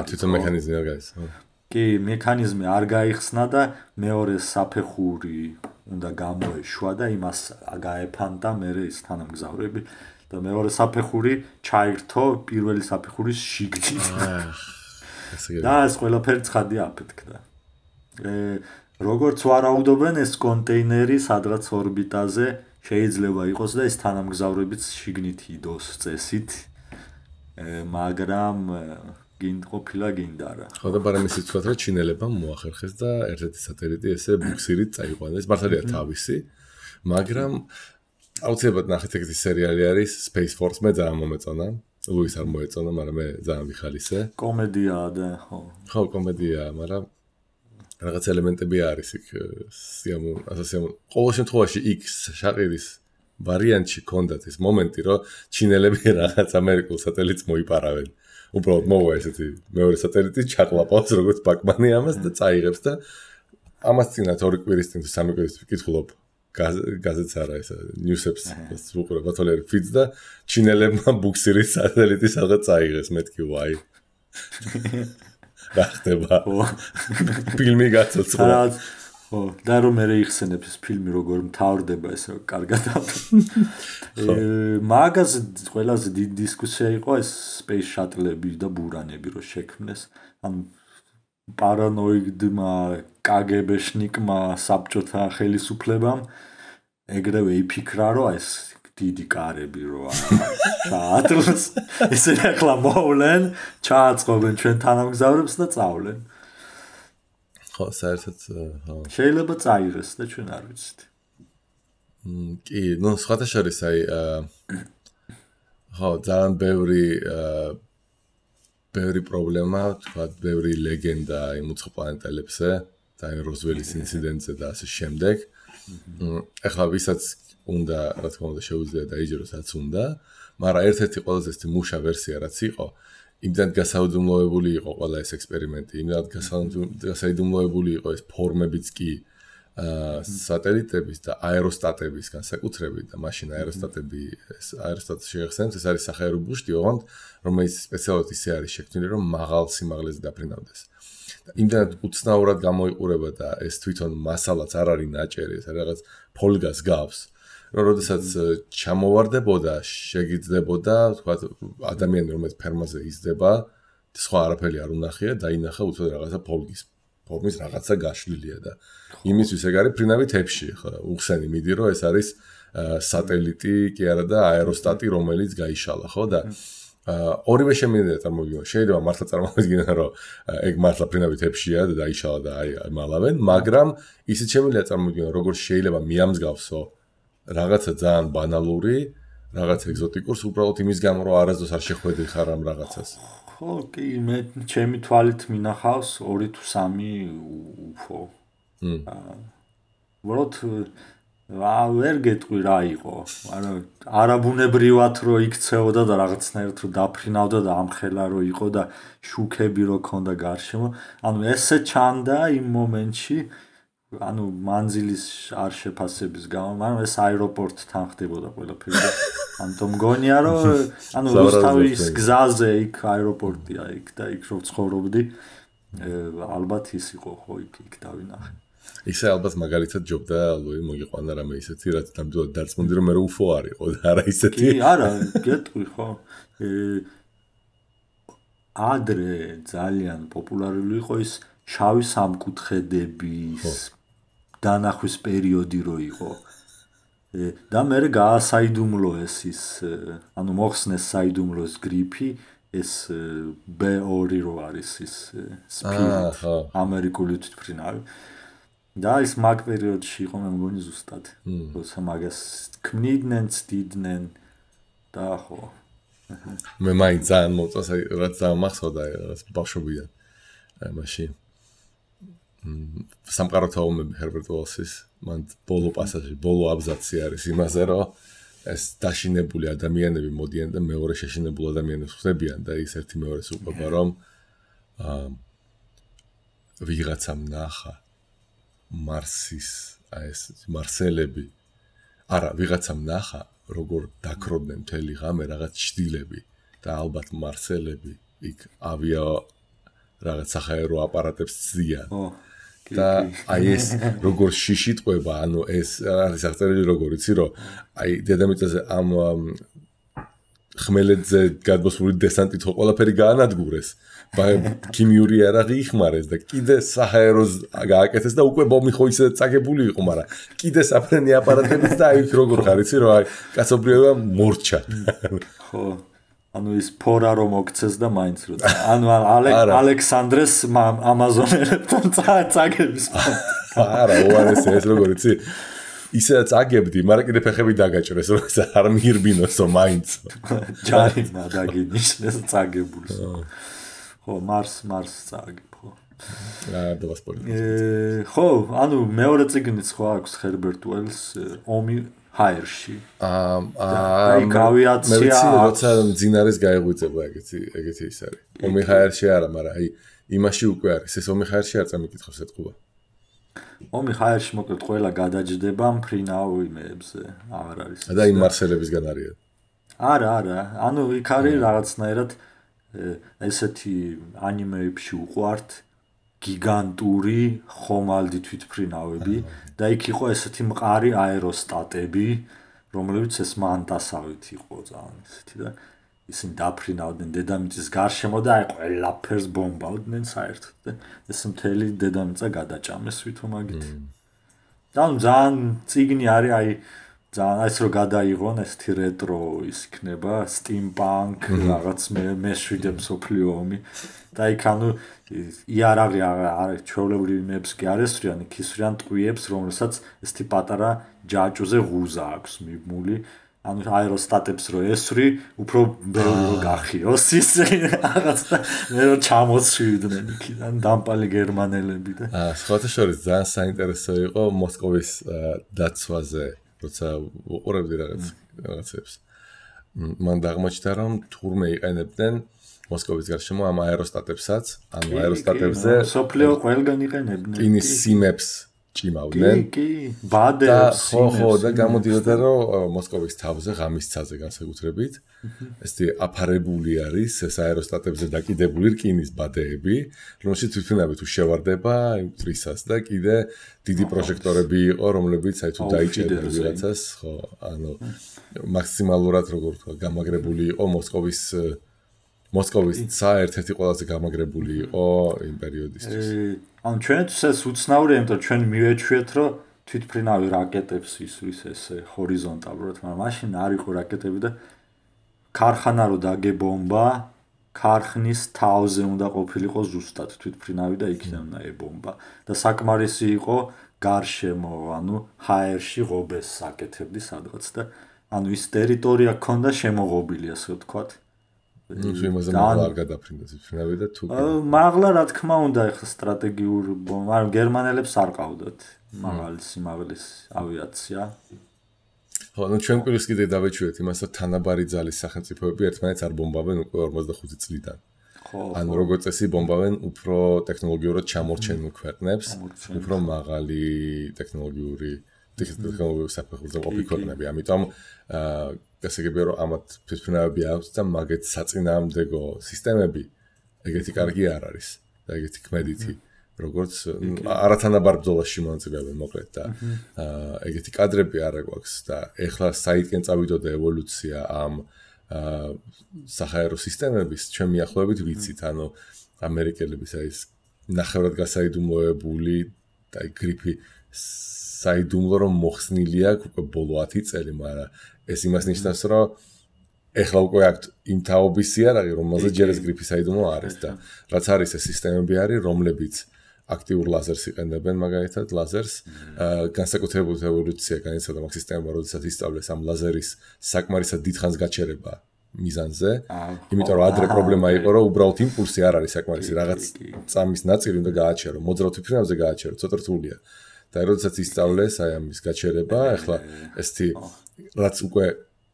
თვითონ მექანიზმი არ გაიხსნა. კი, მექანიზმი არ გაიხსნა და მეორე საფეხური უნდა გამოეშვა და იმას გაეფანტა მერე ის თანამგზავრები და მეორე საფეხური ჩაირთო პირველი საფეხურის შიგნით. და ეს ყველაფერი ცხადი აფეთქდა. როგორც ვარაუდობენ ეს კონტეინერი სადღაც ორბიტაზე შეიძლება იყოს და ეს თანამგზავრებიც შიგნით იდოს წესით. მაგრამ ყოფილა გინდა რა. ხო და ბარემის იცვათ რომ ჩინელებმა მოახერხეს და ერთ-ერთი სატელიტი ესე ბუქსირით წაიყვანეს. მართალია თავისი, მაგრამ აუცილებლად ნახეთ ეგეთი სერიალი არის Space Force მე ძალიან მომეწონა. ლუის არ მოეწონა, მაგრამ მე ძალიან ვიხალისე. კომედიაა და ხო. ხო, კომედიაა, მაგრამ რაღაც ელემენტები არის იქ ყოველ შემთხვევაში იქ შაყირის ვარიანტში კონდათ ეს მომენტი რომ ჩინელები რაღაც ამერიკულ სატელიტს მოიპარავენ. უბრალოდ მოვა ესეთი მეორე სატელიტი ჩაყლაპავს როგორც ბაკმანი ამას და წაიღებს და ამას წინათ ორი კვირის წინ თუ სამი კვირის წინ ვკითხულობ გაზეთს არა ესა ნიუსებს უყურებ ბათოლერი ფიდს და ჩინელებმა ბუქსირის სატელიტი სადღაც წაიღეს მეთქი ვაი რა ხდება ფილმი გაცოცხლა ხო და რომ მე იხსენებს ეს ფილმი როგორ მთავრდება ესე კარგად მაგას ყველაზე დიდი დისკუსია იყო ეს space shuttle-ები და ბურანები რო შექმნეს ან პარანოიდმა კგბ-შნიკმა საბჭოთა ხელისუფლებამ ეგრევე იფიქრა რომ ეს დიდი კარები რო შატლს ესე ახლა მოვლენ ჩააწყობენ ჩვენ თანამგზავრებს და წავლენ ხო, საერთოდ შეიძლება წაიღეს და ჩვენ არ ვიცით. კი, ნუ სხვათა შორის აი ხო, ძალიან ბევრი პრობლემა, თქვა, ბევრი ლეგენდა იმ უცხო პლანეტელებზე და როზველის ინციდენტზე და ასე შემდეგ. ეხლა ვისაც უნდა, რა თქმა უნდა, შეუძლია დაიჯეროს, რაც უნდა, მაგრამ ერთ-ერთი ყველაზე მუშა ვერსია რაც იყო, იმდან გასაიდუმლოებული იყო ყველა ეს ექსპერიმენტი, იმდან გასაიდუმლოებული იყო ეს ფორმებიც კი სატელიტების და აეროსტატების განსაკუთრებით და მაშინ აეროსტატს შეეხსენებს, ეს არის სახაერო ბუშტი, ოღონდ რომელიც სპეციალურად ისე არის შექმნილი, რომ მაღალ სიმაღლეზე დაფრინავდეს. და იმდანაც უცნაურად გამოიყურება და ეს თვითონ მასალაც არ არის ნაჭერი, ეს რაღაც ფოლგას გავს. რომ როდესაც ჩამოვარდებოდა, შეგიძლებოდა, თქვა ადამიანი რომელიც ფერმაზე იზრდება, სხვა არაფერი არ უნახია, დაინახა უცოდ რაღაცა ფორმის რაღაცა გაშლილია და იმისთვის ეგ არის ფრინავი თებში, ხო, უხსენი მიდი რომ ეს არის სატელიტი, კი არა და აეროსტატი, რომელიც გაიშალა, ხო და ორივე შემინდა წარმოვიდგინოთ. შეიძლება მართლა წარმოვიდგინოთ, რომ ეგ მართლა ფრინავი თებშია და დაიშალა და აი მალავენ, მაგრამ ისიც შემიძლია წარმოვიდგინოთ, როგორც შეიძლება მიამსგავსო რაღაცა ძალიან ბანალური, რაღაც ეგზოტიკურს უბრალოდ იმის გამო, რომ არასდროს არ შეხვედი ხარ ამ რაღაცას. ხო, კი, მე ჩემი თვალით მინახავს 2 თუ 3 უფო. უბრალოდ ვერ გეტყვი რა იყო, მაგრამ არაბუნებრივად რო იქცეოდა და რაღაცნაირად რო დაფრინავდა და ამხელა რო იყო და შუქები რო ქონდა გარშემო. ანუ ესე ჩანდა იმ მომენტში, ანუ მანძილის არ შეფასების გამო, მაგრამ ეს აეროპორტთან ხდებოდა ყველაფერი. ამიტომ მგონია რომ ანუ რუსთავის გზაზე იქ აეროპორტია იქ და იქ რო ცხოვრობდი, ალბათ ის იყო ხო იქ დავინახე. ისე ალბათ მაგალითად ჯობდა ლუი მოგიყვანა რამე ისეთი, რაც ნამდვილად დარწმუნდი რომ მე რო უფო არისო და არა ისეთი. კი, არა, გეტყვი ხო. ადრე ძალიან პოპულარული იყო ის შავი სამკუთხედების დანახვის პერიოდი რო იყო. და მე გაასაიდუმლოეს ის, ანუ მოხსნეს საიდუმლოს გრიფი, ეს B2 რო არის ის სპირიტ, ამერიკული თვითმფრინავი. და ის მაგ პერიოდში იყო მე მგონი ზუსტად. როცა მაგას ქმნიდნენ, ცდიდნენ და ხო. მე მაინც ძალიან მოწონს, რაც დამახსოვდა რაღაც ბავშვობიდან. მაშინ სამყაროთა ომები ჰერბერტ უელსის, მან ბოლო პასაჟი, ბოლო აბზაცი არის იმაზე, რომ ეს დაშინებული ადამიანები მოდიან და მეორე შეშინებულ ადამიანებს ხდებიან და ის ერთი მეორეს უყვება, რომ ვიღაცამ ნახა მარსის, ეს მარსელები, არა, ვიღაცამ ნახა, როგორ დაქროდნენ მთელი ღამე რაღაც ჩდილები და ალბათ მარსელები იქ ავია რაღაც სახაერო აპარატებს ცდიან. და აი ეს როგორ შიში ტყვება, ანუ ეს არის აღწერილი როგორ იცი, რომ აი დედამიწაზე ამ ხმელეთზე გადმოსული დესანტით ხო ყველაფერი გაანადგურეს. ქიმიური იარაღი იხმარეს და კიდე საჰაეროს გააკეთეს და უკვე ბომი ხო ისე წაგებული იყო, მაგრამ კიდე საფრენი აპარატებიც და აი როგორ ხარ იცი, რომ აი კაცობრიობა მორჩა. ხო. ანუ ის ფორა რომ მოგცეს და მაინც რო. ანუ ალექსანდრეს ამაზონელებთან წაგების. არა, უარეს ეს როგორ იცი? ისე წაგებდი, მაგრამ კიდე ფეხები დაგაჭრეს, რომ არ მიირბინოსო მაინც. ჯარი დაგინიშნეს წაგებულს. ხო, მარს წაგებ, ხო. ხო, ანუ მეორე წიგნიც ხო აქვს ჰერბერტ უელს, ომი ჰაერში. აი გავიაცია. მე როცა მძინარეს გაეღვიძება ეგეთი ის არის. ომი ჰაერში არა, მაგრამ აი იმაში უკვე არის. ეს ომი ჰაერში არ წამიკითხავს ეთყობა. ომი ჰაერში მოკლედ ყველა გადაჯდება მფრინავებზე, აღარ არის. და იმ მარსელებისგან არიან. არა, ანუ იქ არის რაღაცნაირად ესეთი ანიმეებში უყვართ გიგანტური ხომალდი თვითმფრინავები და იქ იყო ესეთი მყარი აეროსტატები, რომლებიც ეს მანტასავით იყო ძალიან ესეთი და ისინი დაფრინავდნენ დედამიწის გარშემო და აი ყველაფერს ბომბავდნენ საერთოდ და ეს მთელი დედამიწა გადაჭამეს თვითომაგით. და ძალიან წიგნი არის აი ძალიან ეს რო გადაიღონ ესეთი რეტრო ის იქნება სტიმპანკ რაღაც მეშვიდე მსოფლიო ომი და იქ ანუ იარაღი არის ჩვეულებრივი მეებს კი არ ესვრიან, იქ ისვრიან ტყვიებს, რომელსაც ესეთი პატარა ჯაჭუზე ღუზა აქვს მიბმული ანუ აეროსტატებს რო ესვრი, უფრო ბევრი რო გახიოს ისე რაღაც და მე რო ჩამოცვიდნენ იქიდან დამპალი გერმანელები და სხვათა შორის ძალიან საინტერესო იყო მოსკოვის დაცვაზე, როცა უყურებდი რაღაცებს. მან დაღმოჩნდა რომ თურმე იყენებდნენ მოსკოვის გარშემო ამ აეროსტატებსაც, ანუ აეროსტატებზე სოფლიო ყველგან იყენებდნენ. ინის სიმებს ჭიმავდნენ. კი, ბადებს, ხო, და გამოდიოდა რომ მოსკოვის თავზე ღამისცაზე განსაკუთრებით ესეთი აფარებული არის ეს აეროსტატებზე დაკიდებული რკინის ბადეები, რომელშიც თვითმფრინავი თუ შევარდება იმ ტრისას და კიდე დიდი პროჟექტორები იყო, რომლებიც აი თუ დაიჭერდა ვიღაცას, ხო, ანუ მაქსიმალურად როგორ თქვა, გამაგრებული იყო მოსკოვის ცა ერთ-ერთი ყველაზე გამაგრებული იყო იმ პერიოდისთვის. ანუ ჩვენთვის ეს უცნაურია, იმიტომ რომ ჩვენ მივეჩვიეთ, რომ თვითმფრინავი რაკეტებს ისვრის ესე ჰორიზონტალურად, მაგრამ მაშინ არ იყო რაკეტები და ქარხანა რო დაგებომბა, ქარხნის თავზე უნდა ყოფილიყო ზუსტად თვითმფრინავი და იქიდან უნდა ებომბა და საკმარისი იყო გარშემო, ანუ ჰაერში ღობეს საკეთებდი სადღაც და ანუ ის ტერიტორია ქონდა შემოღობილი, ასე ვთქვათ. ნუ იმაზე მაღლა არ გადაფრინდა თვითმფრინავი და თუ მაღლა რა თქმა უნდა ეხლა სტრატეგიურ მაგრამ გერმანელებს არ ყავდათ მაღალი სიმაღლის ავიაცია. ხო, ნუ ჩვენ პირის კიდე დავეჩვიეთ იმას, რომ თანაბარი ძალის სახელმწიფოები ერთმანეთს არ ბომბავენ უკვე 45 წლიდან. ანუ როგორც წესი ბომბავენ უფრო ტექნოლოგიურად ჩამორჩენილ ქვეყნებს, უფრო მაღალი ტექნოლოგიური საფეხურზე ყოფილი ქვეყნები. ამიტომ გასაგებია რომ ამათ თვითმფრინავები აქვს და მაგეთ საწინააღმდეგო სისტემები ეგეთი კარგი არ არის და ეგეთი ქმედითი როგორც არათანაბარ ბრძოლაში მონაწილეობენ მოკლედ და ეგეთი კადრები არ აქვს და ეხლა საითკენ წავიდოდა ევოლუცია ამ საჰაერო სისტემების ჩვენ მიახლოებით ვიცით ანუ ამერიკელების აი ეს ნახევრად გასაიდუმლოებული და გრიფი საიდუმლო რომ მოხსნილი აქვს უკვე ბოლო 10 წელი, მაგრამ ეს იმას ნიშნავს, რომ ეხლა უკვე აქვს იმ თაობის იარაღი, რომელზეც ჯერ ეს გრიფი საიდუმლო არის და რაც არის ეს სისტემები არის, რომლებიც აქტიურ ლაზერს იყენებენ, მაგალითად ლაზერს, განსაკუთრებული ევოლუცია განიცადა მაგ სისტემებმა, როდესაც ისწავლეს ამ ლაზერის საკმარისად დიდხანს გაჩერება მიზანზე, იმიტომ რომ ადრე პრობლემა იყო, რომ უბრალოდ იმპულსი არ არის საკმარისი, რაღაც წამის ნაწილი უნდა გააჩერო, მოძრავ თვითმფრინავზე გააჩერო, ცოტა რთულია. და როდესაც ისწავლეს აი ამის გაჩერება, ახლა ესეთი რაც უკვე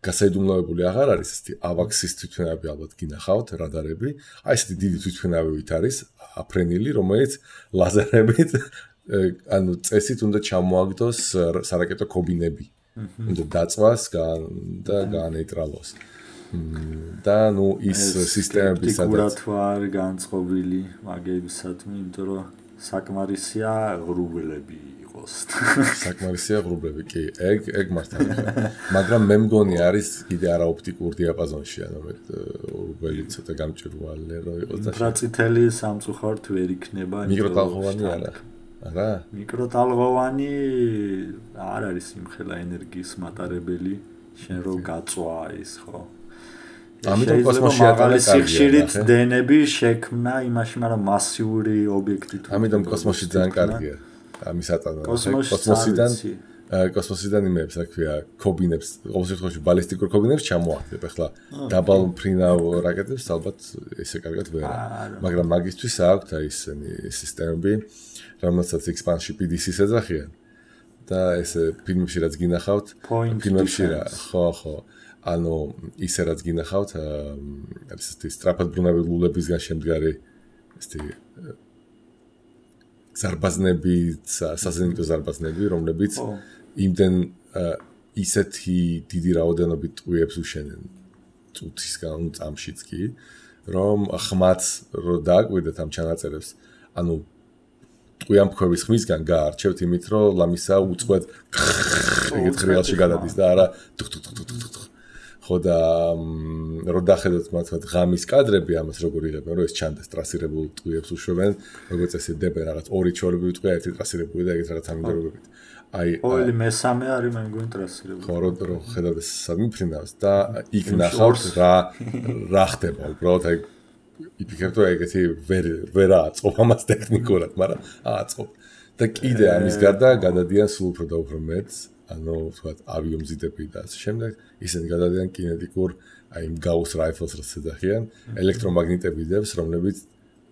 გასაიდუმლოებული აღარ არის, ესეთი ავაქსის თვითმფრინავები ალბათ გინახავთ, რადარები, აი ესეთი დიდი თვითმფრინავით არის აფრენილი, რომელიც ლაზერებით ანუ წესით უნდა ჩამოაგდოს სარაკეტო ქობინები. უნდა დაწვას და გაანეიტრალოს. და ნუ ის სისტემები სადაც არ განწყობილი მაგებისადმი, იმიტომ რომ საკმარისია ღრუბლები იყოს. საკმარისია ღრუბლები, კი, ეგ მართალია. მაგრამ მე მგონი არის კიდე არაოპტიკურ დიაპაზონში, ანუ მე ღრუბელი ცოტა გამჭვირვალე რო იყოს და ინფრაწითელი სამწუხაროდ ვერ იქნება. მიკროტალღოვანი არა? არა? მიკროტალღოვანი არ არის იმხელა ენერგიის მატარებელი, შენ რო გაწვა ის ხო? ამიტომ კოსმოსში ატარებს სიხშირით დნები შექმნა იმაში, მაგრამ მასიური ობიექტი თუ ამიტომ კოსმოსში ძალიან კარგია. ამის ატანა კოსმოსიდან იმებს, რა ქვია, ქობინებს, ყოველ შემთხვევაში ბალისტიკურ ქობინებს ჩამოაყენებ. ახლა დაბალ მფრინავ რაკეტებს ალბათ ესე კარგად ვერა. მაგრამ მაგისთვის აქვთ აი ესენი სისტემები, რომელსაც X-Pan-ში PDC-ს ეძახიან. და ესე ფილმებში რაც გინახავთ, ფილმებში რა, ხო. ანუ ისე რაც გინახავთ, არის ესეთი სწრაფად ბრუნავი ლულებისგან შემდგარი ესეთი ზარბაზნები, საზენიტო ზარბაზნები, რომლებიც იმდენ ისეთი დიდი რაოდენობით ტყვიებს უშენენ წუთისგან წამშიც კი, რომ ხმაც რო დააკვირდეთ ამ ჩანაწერებს, ანუ ტყვიამფქვევის ხმისგან გაარჩევთ იმით, რომ ლამისა უწყვეტ ეგეთ ხრიალში გადადის და არა ხო და რო დახედოთ მართლა ღამის კადრები ამას როგორ იღებენ, რომ ეს ჩანდეს ტრასირებულ ტყვიებს უშვებენ, როგორც ესე დებენ რაღაც ორი ჩორები ტყვია, ერთი ტრასირებული და ეგეთ რაღაც ამინდორობებით. აი ყოველი მესამე არის მე მგონი ტრასირებული. ხო, რო ხედავთ ეს სამიფრინავს და იქ ნახავთ რა ხდება, უბრალოდ აი იფიქრებთ რომ ეგეთი ვერ აწყობ ამას ტექნიკურად, მაგრამ აწყობ. და კიდე ამის გარდა გადადიან სულ უფრო და უფრო მეტს ანუ ვთქვათ ავიომზიდები და ასე შემდეგ, ისინი გადადიან კინეტიკურ აი იმ Gauss rifles რაც ეძახიან, ელექტრომაგნიტებიდებს, რომლებიც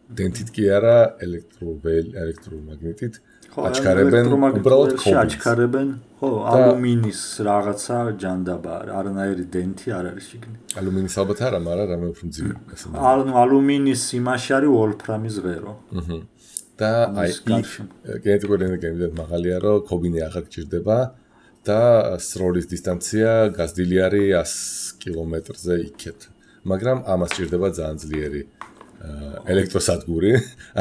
დენტით კი არა, ელექტრომაგნიტით აჩქარებენ უბრალოდ ქობილს. აჩქარებენ, ხო, ალუმინის რაღაცა ჯანდაბა, არანაირი დენტი არ არის შიგნით. ალუმინის ალბათ არა, მაგრამ რამე უფრო მძიმე. ალუმინის იმაში არის ვოლფრამის ღერო. და აი კინეტიკური ენერგია იმდენად მაღალია, რომ ქობინი აღარ გჭირდება და სროლის დისტანცია გაზრდილი არის 100 კილომეტრზე იქეთ. მაგრამ ამას ჭირდება ძალიან ძლიერი ელექტროსადგური,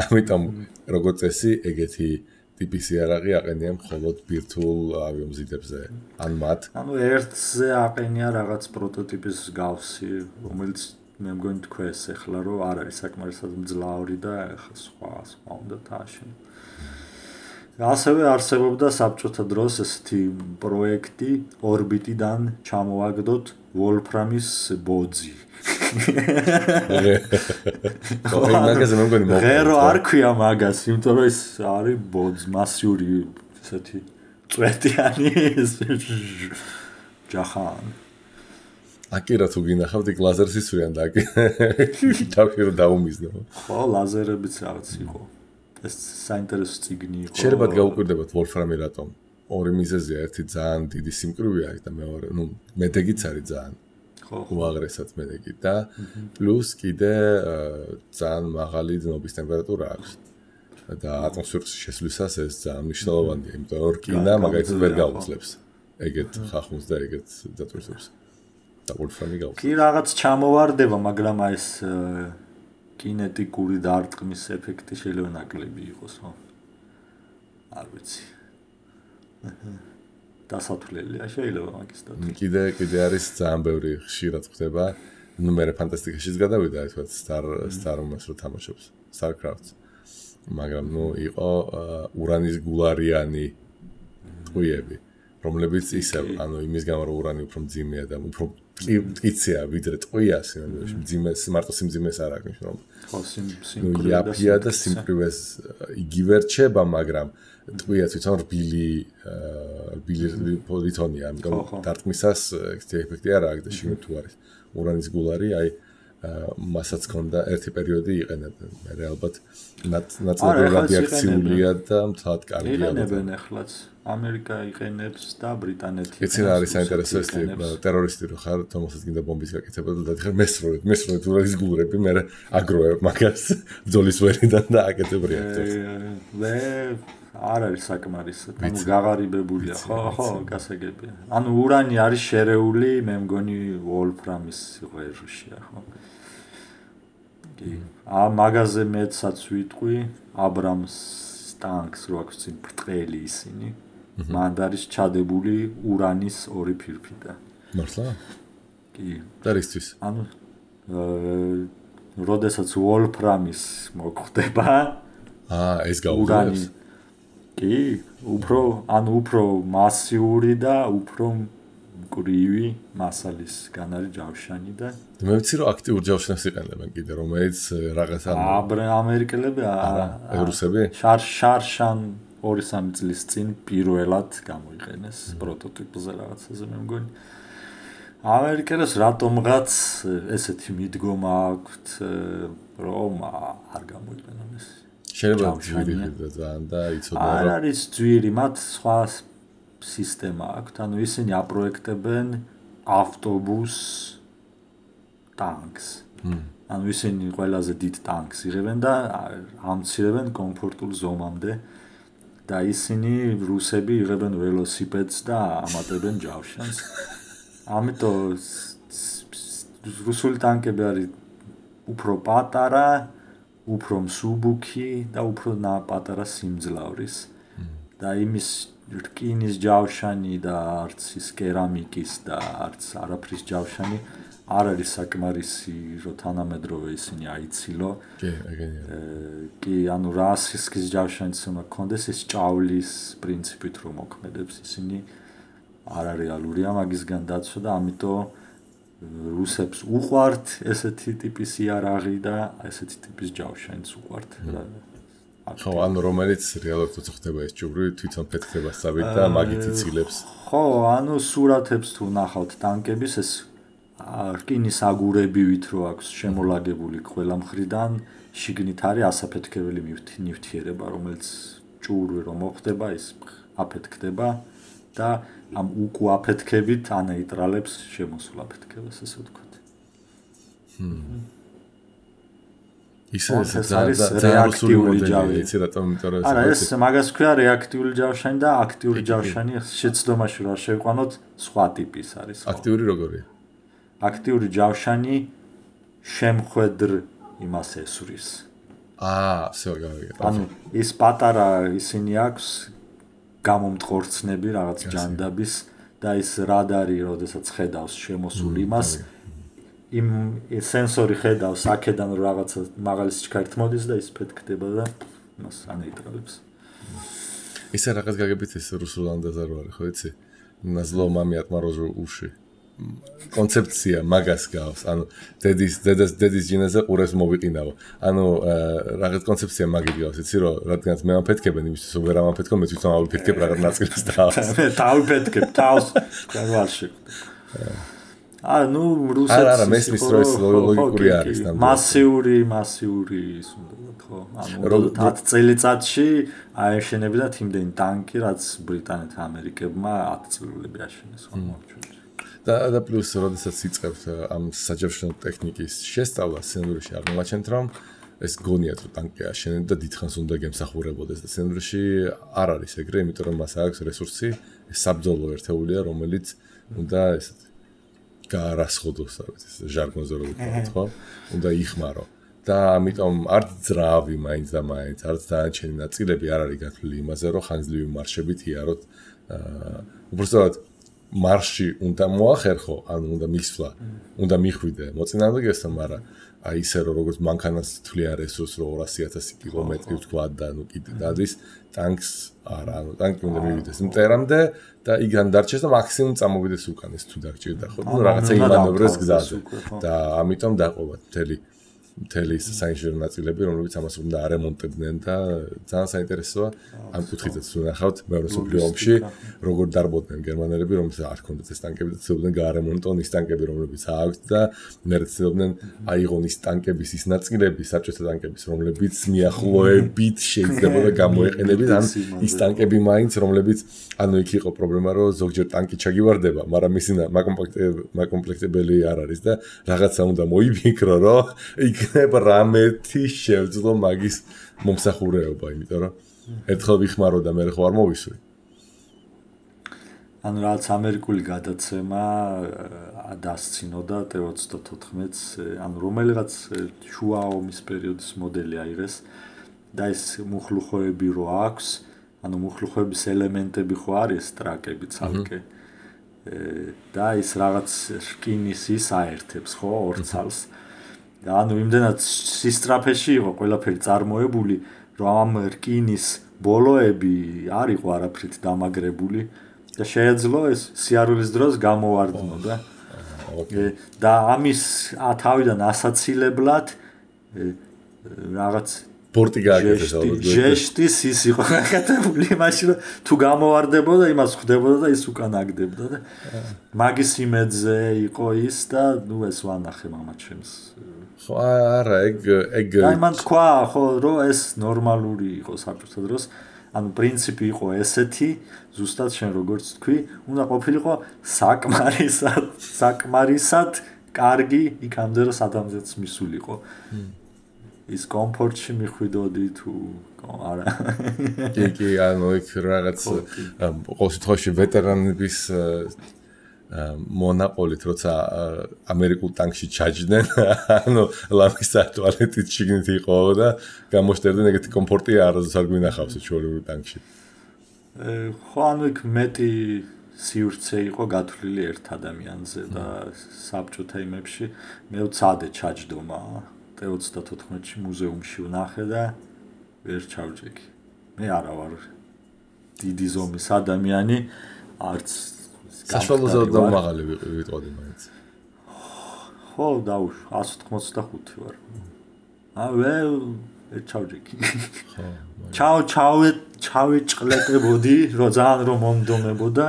ამიტომ როგორც წესი, ეგეთი ტიპის იარაღი აყენია მხოლოდ ბირთვულ ავიომზიდებზე, ან მათ. ანუ ერთზე აყენია რაღაც პროტოტიპის გავსი, რომელიც მე მგონი თქვენს ახლა რომ არ არის საკმარისად მძლავრი და ახლა სხვა უნდა დააშენო. ასევე არსებობდა საბჭოთა დროს ესეთი პროექტი ორბიტიდან ჩამოვაგდოთ ვოლფრამის ბოძი. ღერო არ ქვია მაგას, იმიტომ რომ ეს არის ბოძ მასიური ესეთი წვეტიანი ჯახან. აკირა თუ გინახავთ იქ ლაზერს ისვრიან და თავში რომ დაუმიზნო. ხო, ლაზერებიც რაღაც იყო. ეს საინტერესო წიგნი იყო. შეიძლება გაუკვირდებათ ვოლფრამი რატომ? ორი მიზეზია, ერთი ძალიან დიდი სიმკვრივია და მეორე, მედეგიც არის ძალიან. ხო, უაღრესად მედეგი და პლუს კიდე ძალიან მაღალი დნობის ტემპერატურა აქვს. და ატმოსფეროს შესვლისას ეს ძალიან მნიშვნელოვანია, იმიტომ რომ რკინა მაგალითად ვერ გაუძლებს ეგეთ ხახუნს და ეგეთ დატვირთვებს. და ვოლფრამი გაუძლებს. კი რაღაც ჩამოვარდება, მაგრამ აი ეს კინეტიკური დარტყმის ეფექტი შეიძლება ნაკლები იყოს, ხო? არ ვიცი. დასათვლელია შეიძლება მაგის და კიდე არის ძალიან ბევრი ხშირად ხდება. ნუ მე ფანტასტიკაშიც გადავიდა, აი თქვა Star Wars რო თამაშობს, StarCraft. მაგრამ ნუ იყო ურანის გულარიანი ტყვიები, რომლებიც ისევ, ანუ იმის გამო რომ ურანი უფრო მძიმეა და უფრო მტკიცეა ვიდრე ტყვია, მძიმეს მარტო სიმძიმეს არ აქვს რომ. ხო, სიმკვრივე იაფია და სიმკვრივეს იგივე რჩება, მაგრამ ტყვია თვითონ რბილი პოლიტონია, ამიტომ დარტყმისას ეფექტი არ აქვს და შიგნით თუ არის ურანის გულარი, აი მასაც ქონდა ერთი პერიოდი იყენებდნენ. მე ალბათ ნაწილობრივ რადიაქციულია და მთლად კარგია. იყენებენ ახლაც. ამერიკა იყენებს და ბრიტანეთი. იცი რა არის საინტერესო ეს ტერორისტი რო ხარ, თომასაც გინდა ბომბის გაკეთება და დადიხარ მესროლეთ ურანის გულრები, მე აგროვებ მაგას ბრძოლის ვერიდან და აკეთებ რეაქტორს. მე არ არის საკმარისად. ანუ გაღარიბებულია, ხო, გასაგებია. ანუ ურანი არის შერეული, მე მგონი ვოლფრამის ღეროშია, ხო? კი. მაგაზე მეცაც ვიტყვი, აბრამს ტანკს რო აქვს წინ ბრტყელი ისინი. მან არის ჩადებული ურანის ორი ფირფიტა. მართლა? კი. და რისთვის? ანუ როდესაც ვოლფრამის მოხდება, ეს გაუძლებს. კი, უფრო მასიური და უფრო მკვრივი მასალის გან არის ჯავშანი და მე ვიცი რომ აქტიურ ჯავშანს იყენებენ კიდე, რომელიც რაღაცა ამერიკელები არა, რუსები? შარშან 2-3 წლის წინ პირველად გამოიყენეს პროტოტიპზე რაღაცაზე მე მგონი. ამერიკელებს რატომღაც ესეთი მიდგომა აქვთ, რომ არ გამოიყენონ ეს. შეიძლება ძვირი და ძალიან და იცოდნენ რომ არ არის ძვირი, მათ სხვა სისტემა აქვთ, ანუ ისინი აპროექტებენ ავტობუს ტანკს. ანუ ისინი ყველაზე დიდ ტანკს იღებენ და ამცირებენ კომფორტულ ზომამდე და ისინი რუსები იღებენ ველოსიპედს და ამატებენ ჯავშანს. ამიტომ რუსული ტანკები არის უფრო პატარა, უფრო მსუბუქი და უფრო პატარა სიმძლავრის. და იმის რკინის ჯავშანი და არც ის კერამიკის და არც არაფრის ჯავშანი არ არის საკმარისი, რომ თანამედროვე ისინი აიცილო. კი, ეგენია. კი, ანუ რასისკის ჯავშანიც უნდა გქონდეს, ის ჭავლის პრინციპით რომ მოქმედებს, ისინი არარეალურია მაგისგან დაცვა და ამიტომ რუსებს უყვართ ესეთი ტიპის იარაღი და ესეთი ტიპის ჯავშანიც უყვართ. ხო, ანუ რომელიც რეალურად თვითონ ხდება ეს ჯუბრი, თვითონ ფეთქდება სწავით და მაგით იცილებს. ხო, ანუ სურათებს თუ ნახავთ ტანკების ეს რკინის აგურებივით რო აქვს შემოლაგებული ყველა მხრიდან, შიგნით არის ასაფეთქებელი ნივთიერება, რომელიც ჭურვი რომ მოხდება, ის აფეთქდება და ამ უკუაფეთქებით ანეიტრალებს შემოსულ აფეთქებას, ესე ვთქვათ. ეს არის რეაქტიული ჯავშანი, იცი რატომ, იმიტომ რომ არა, ეს მაგას ქვია რეაქტიული ჯავშანი და აქტიური ჯავშანი, შეცდომაში რა შევყვანოთ, სხვა ტიპის არის. აქტიური როგორია? აქტიური ჯავშანი შემხვედრ იმას ესვრის. всё, გავიგე. ანუ ის პატარა ისინი აქვს გამომტყორცნები რაღაც ჯანდაბის და ის რადარი, როდესაც ხედავს შემოსულ იმას, იმ სენსორი ხედავს აქედან რაღაცა მაღალი სიჩქარით მოდის და ის ფეთქდება და მას ანეიტრალებს. ისე რაღაც გაგებით ეს რუსულ ანდაზე რო არის, ხო იცი? На зло маме отморожу уши. კონცეფცია მაგას გავს. ანუ დედის ჯინაზე ყურებს მოვიყინავ. ანუ რაღაც კონცეფცია მაგით გავს, იცი რომ რადგანაც მე ამფეთქებენ იმისთვის რომ ვერ ამფეთქო, მე თვითონ ავიფეთქებ რაღაც ნაწილს თავს. მე დავიფეთქებ თავს. კარვალში. ну რუსეთს არა მესმის რო ეს ლოგიკური არის ნამდვილად. მასიური ის უნდა ხო? ანუ 10 წელიწადში აეშენებინათ იმდენი ტანკი, რაც ბრიტანეთმა ამერიკებმა 10 წლები აშენეს ხო მოვჩვენე. და პლუს როდესაც იწყებთ ამ საჯავშნო ტექნიკის შესწავლას სცენარში აღმოაჩენთ რომ ეს გონიათ რომ ტანკი აშენენ და დიდხანს უნდა გემსახურებოდეს და სცენარში არ არის ეგრე, იმიტომ რომ მას აქვს რესურსი, ეს საბრძოლო ერთეულია, რომელიც უნდა ესეთი გაარასხოდოს, ეს ჟარგონზე რო ვთქვათ, ხო? უნდა იხმარო. და ამიტომ არც ძრავი მაინც და მაინც, არც დანარჩენი ნაწილები არ არის გათვლილი იმაზე, რომ ხანგრძლივი მარშებით იაროთ. უბრალოდ მარში უნდა მოახერხო, ანუ უნდა მისვლა, უნდა მიხვიდე მოწინააღმდეგესთან, მაგრამ აი ისე რომ როგორც მანქანას თვლიან რესურს რომ 200,000 კილომეტრი ვთქვა და ნუ კიდე დადის ტანკს არა, ანუ ტანკი უნდა მივიდეს მტერამდე და იგან დარჩეს და მაქსიმუმ წამოვიდეს უკან ეს თუ დაგჭირდა ხო? ნუ რაღაცა იმანევრეს გზაზე და ამიტომ დაყობა მთელი საინჟინრო ნაწილები, რომლებიც ამას უნდა არემონტებდნენ და ძალიან საინტერესოა ამ კუთხითაც თუ ნახავთ მეორე მსოფლიო ომში როგორ დარბოდნენ გერმანელები, რომელსაც არ ჰქონდათ ეს ტანკები და ცდილობდნენ გაარემონტონ ის ტანკები, რომლებიც აქვთ და მე ცდილობდნენ აიღონ ის ტანკების ის ნაწილები, საბჭოთა ტანკების, რომლებიც მიახლოებით შეიძლებოდა გამოეყენებინათ ან ის ტანკები მაინც, რომლებიც ანუ იქ იყო პრობლემა, რომ ზოგჯერ ტანკი ჩაგივარდება, მაგრამ მისი მაკომპლექტებელი არ არის და რაღაცა უნდა მოიფიქრო, რომ იქნება რამეთი შევძლო მაგის მომსახურეობა, იმიტომ რომ ერთხელ ვიხმარო და მე ხო არ მოვისვრი. ანუ რაც ამერიკული გადაცემა დასცინოდა T-34-ს, ანუ რომელიღაც შუა ომის პერიოდის მოდელი აიღეს და ეს მუხლუხოები რო აქვს, ანუ მუხლუხოების ელემენტები ხო არის ტრაკები ცალკე. და ის რაღაც რკინის ის აერთებს ხო ორ ცალს. ანუ იმდენად სისტრაფეში იყო ყველაფერი წარმოებული, რომ ამ რკინის ბოლოები არ იყო არაფრით დამაგრებული და შეეძლო ეს სიარულის დროს გამოვარდნოდა. და ამის თავიდან ასაცილებლად რაღაც პორტი გააკეთეს ალბათ. ჟესტის ის იყო გაკეთებული, მაშინ თუ გამოვარდებოდა, იმას ხვდებოდა და ის უკან აგდებდა და მაგის იმედზე იყო ის და ნუ ეს ვანახე მამაჩემს. ხო არა, ეგ აი მან თქვა ხო რომ ეს ნორმალური იყო საბჭოთა დროს, ანუ პრინციპი იყო ესეთი, ზუსტად შენ როგორც თქვი, უნდა ყოფილიყო საკმარისად კარგი იქამდე რომ სადამზეც მისულიყო. ის კომფორტში მიხვიდოდი თუ არა. კი, ანუ იქ რაღაც ყოველ შემთხვევაში ვეტერანების მონაყოლით, როცა ამერიკულ ტანკში ჩაჯდნენ, ანუ ლამისა ტუალეტით შიგნით იყო და გამოშტერდნენ ეგეთი კომფორტი არასდროს არ გვინახავს ჩვეულებრივ ტანკში. ხო, ანუ იქ მეტი სივრცე იყო გათვლილი ერთ ადამიანზე და საბჭოთა იმებში მე ვცადე ჩაჯდომა T-34-ში მუზეუმში ვნახე და ვერ ჩავჭიქი. მე არა ვარ დიდი ზომის ადამიანი, არც საშუალოზე და მაღალი ვიტყოდი მაინც. ხო, დაუშვა 185 ვარ. ჩავჯექი. ჩავეჭყლეტებოდი, რომ ძალიან რომ მომდომებოდა,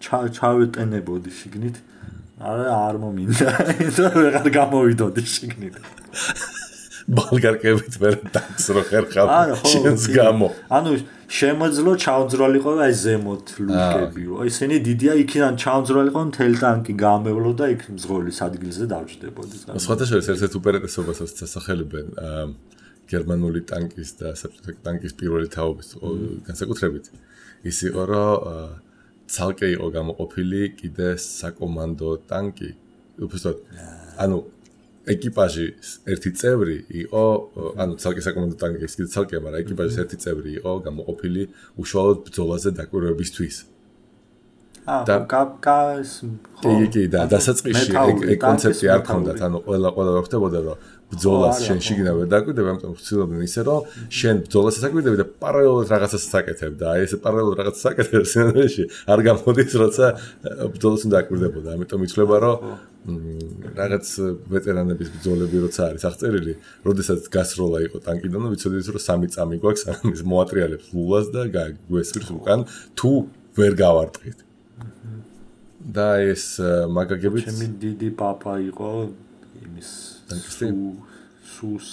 ჩავეტენებოდი შიგნით. არ მომინდა. ვეღარ გამოვიდოდი შიგნით. ბალგარკებით ვერ დაგს რო ხერხავ შენს გამო. ანუ შემოძლო ჩავძროლიყო აი ზემოთ ლუკებიო. ისინი დიდია იქიდან ჩავძროლიყო მთელი ტანკი გამევლო და იქ მძღოლის ადგილზე დავჯდებოდი. სხვადასხვა ერთ-ერთ უპირატესობას ასახელებენ გერმანული ტანკის და საბჭოთა ტანკის პირველი თაობის განსაკუთრებით. ის იყო რომ ცალკე იყო გამოყოფილი კიდე საკომანდო ტანკი. უბრალოდ ანუ ეკიპაჟის ერთი წევრი იყო, ანუ ცალკე საკომანდო ტანკის კიდე ცალკე, მაგრამ ეკიპაჟის ერთი წევრი იყო გამოყოფილი უშუალოდ ბრძოლაზე დაკვირვებისთვის. კი, და დასაწყისში ეგ კონცეფცია არ ქონდათ, ანუ ყველა ხდებოდა, რომ ბრძოლას შენ შიგნით ვერ დაკვირდები, ამიტომ ვცდილობდნენ ისე, რომ შენ ბრძოლას აკეთებდი და პარალელურად რაღაცას აკეთებდა. აი ესე პარალელურად რაღაცას აკეთებს სცენარში, არ გამოდის, როცა ბრძოლას უნდა აკვირდებოდა. ამიტომ იცვლება, რომ რაღაც ვეტერანების ბრძოლები როცა არის აღწერილი, როდესაც გასროლა იყო ტანკიდან, ვიცოდით, რომ 3 წამი გვაქვს, ამის მოატრიალებს ლულას და გვესვირს უკან თუ ვერ გავარტყით. და ეს მაგაგებით ჩემი დიდი პაპა იყო იმის სუს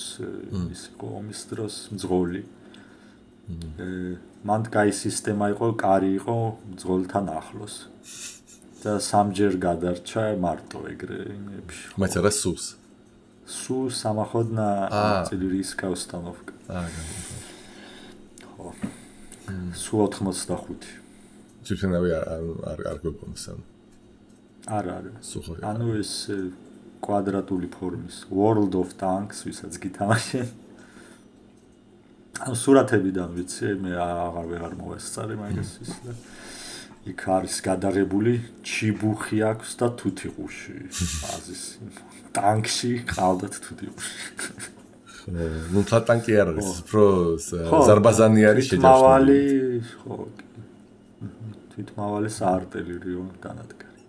ის იყო ომის დროს მძღოლი. მან კაი სისტემა იყო, კარი იყო მძღოლთან ახლოს. და სამჯერ გადარჩა მარტო ეგრე იმებში. Маца რა სუს? Су самоходная артиллерийская установка. ხო. Су 85. Ჩვენავე არ გვეუბნებს ან. არა. ანუ ეს კვადრატული ფორმის World of Tanks, ვისაც გითამაშე. ანუ სურათებიდან ვიცი, მე აღარ მოვესწარი მაგას ის და იქ არის გადაღებული ჩიბუხი აქვს და თუთიყუში. აზის ტანკში ყავდათ თუთიყუში. ნუ ტანკი არ არის, პრო ზარბაზანი არის შეჯავრებული. ხო. თვითმავალი საარტილერიო განადგარი.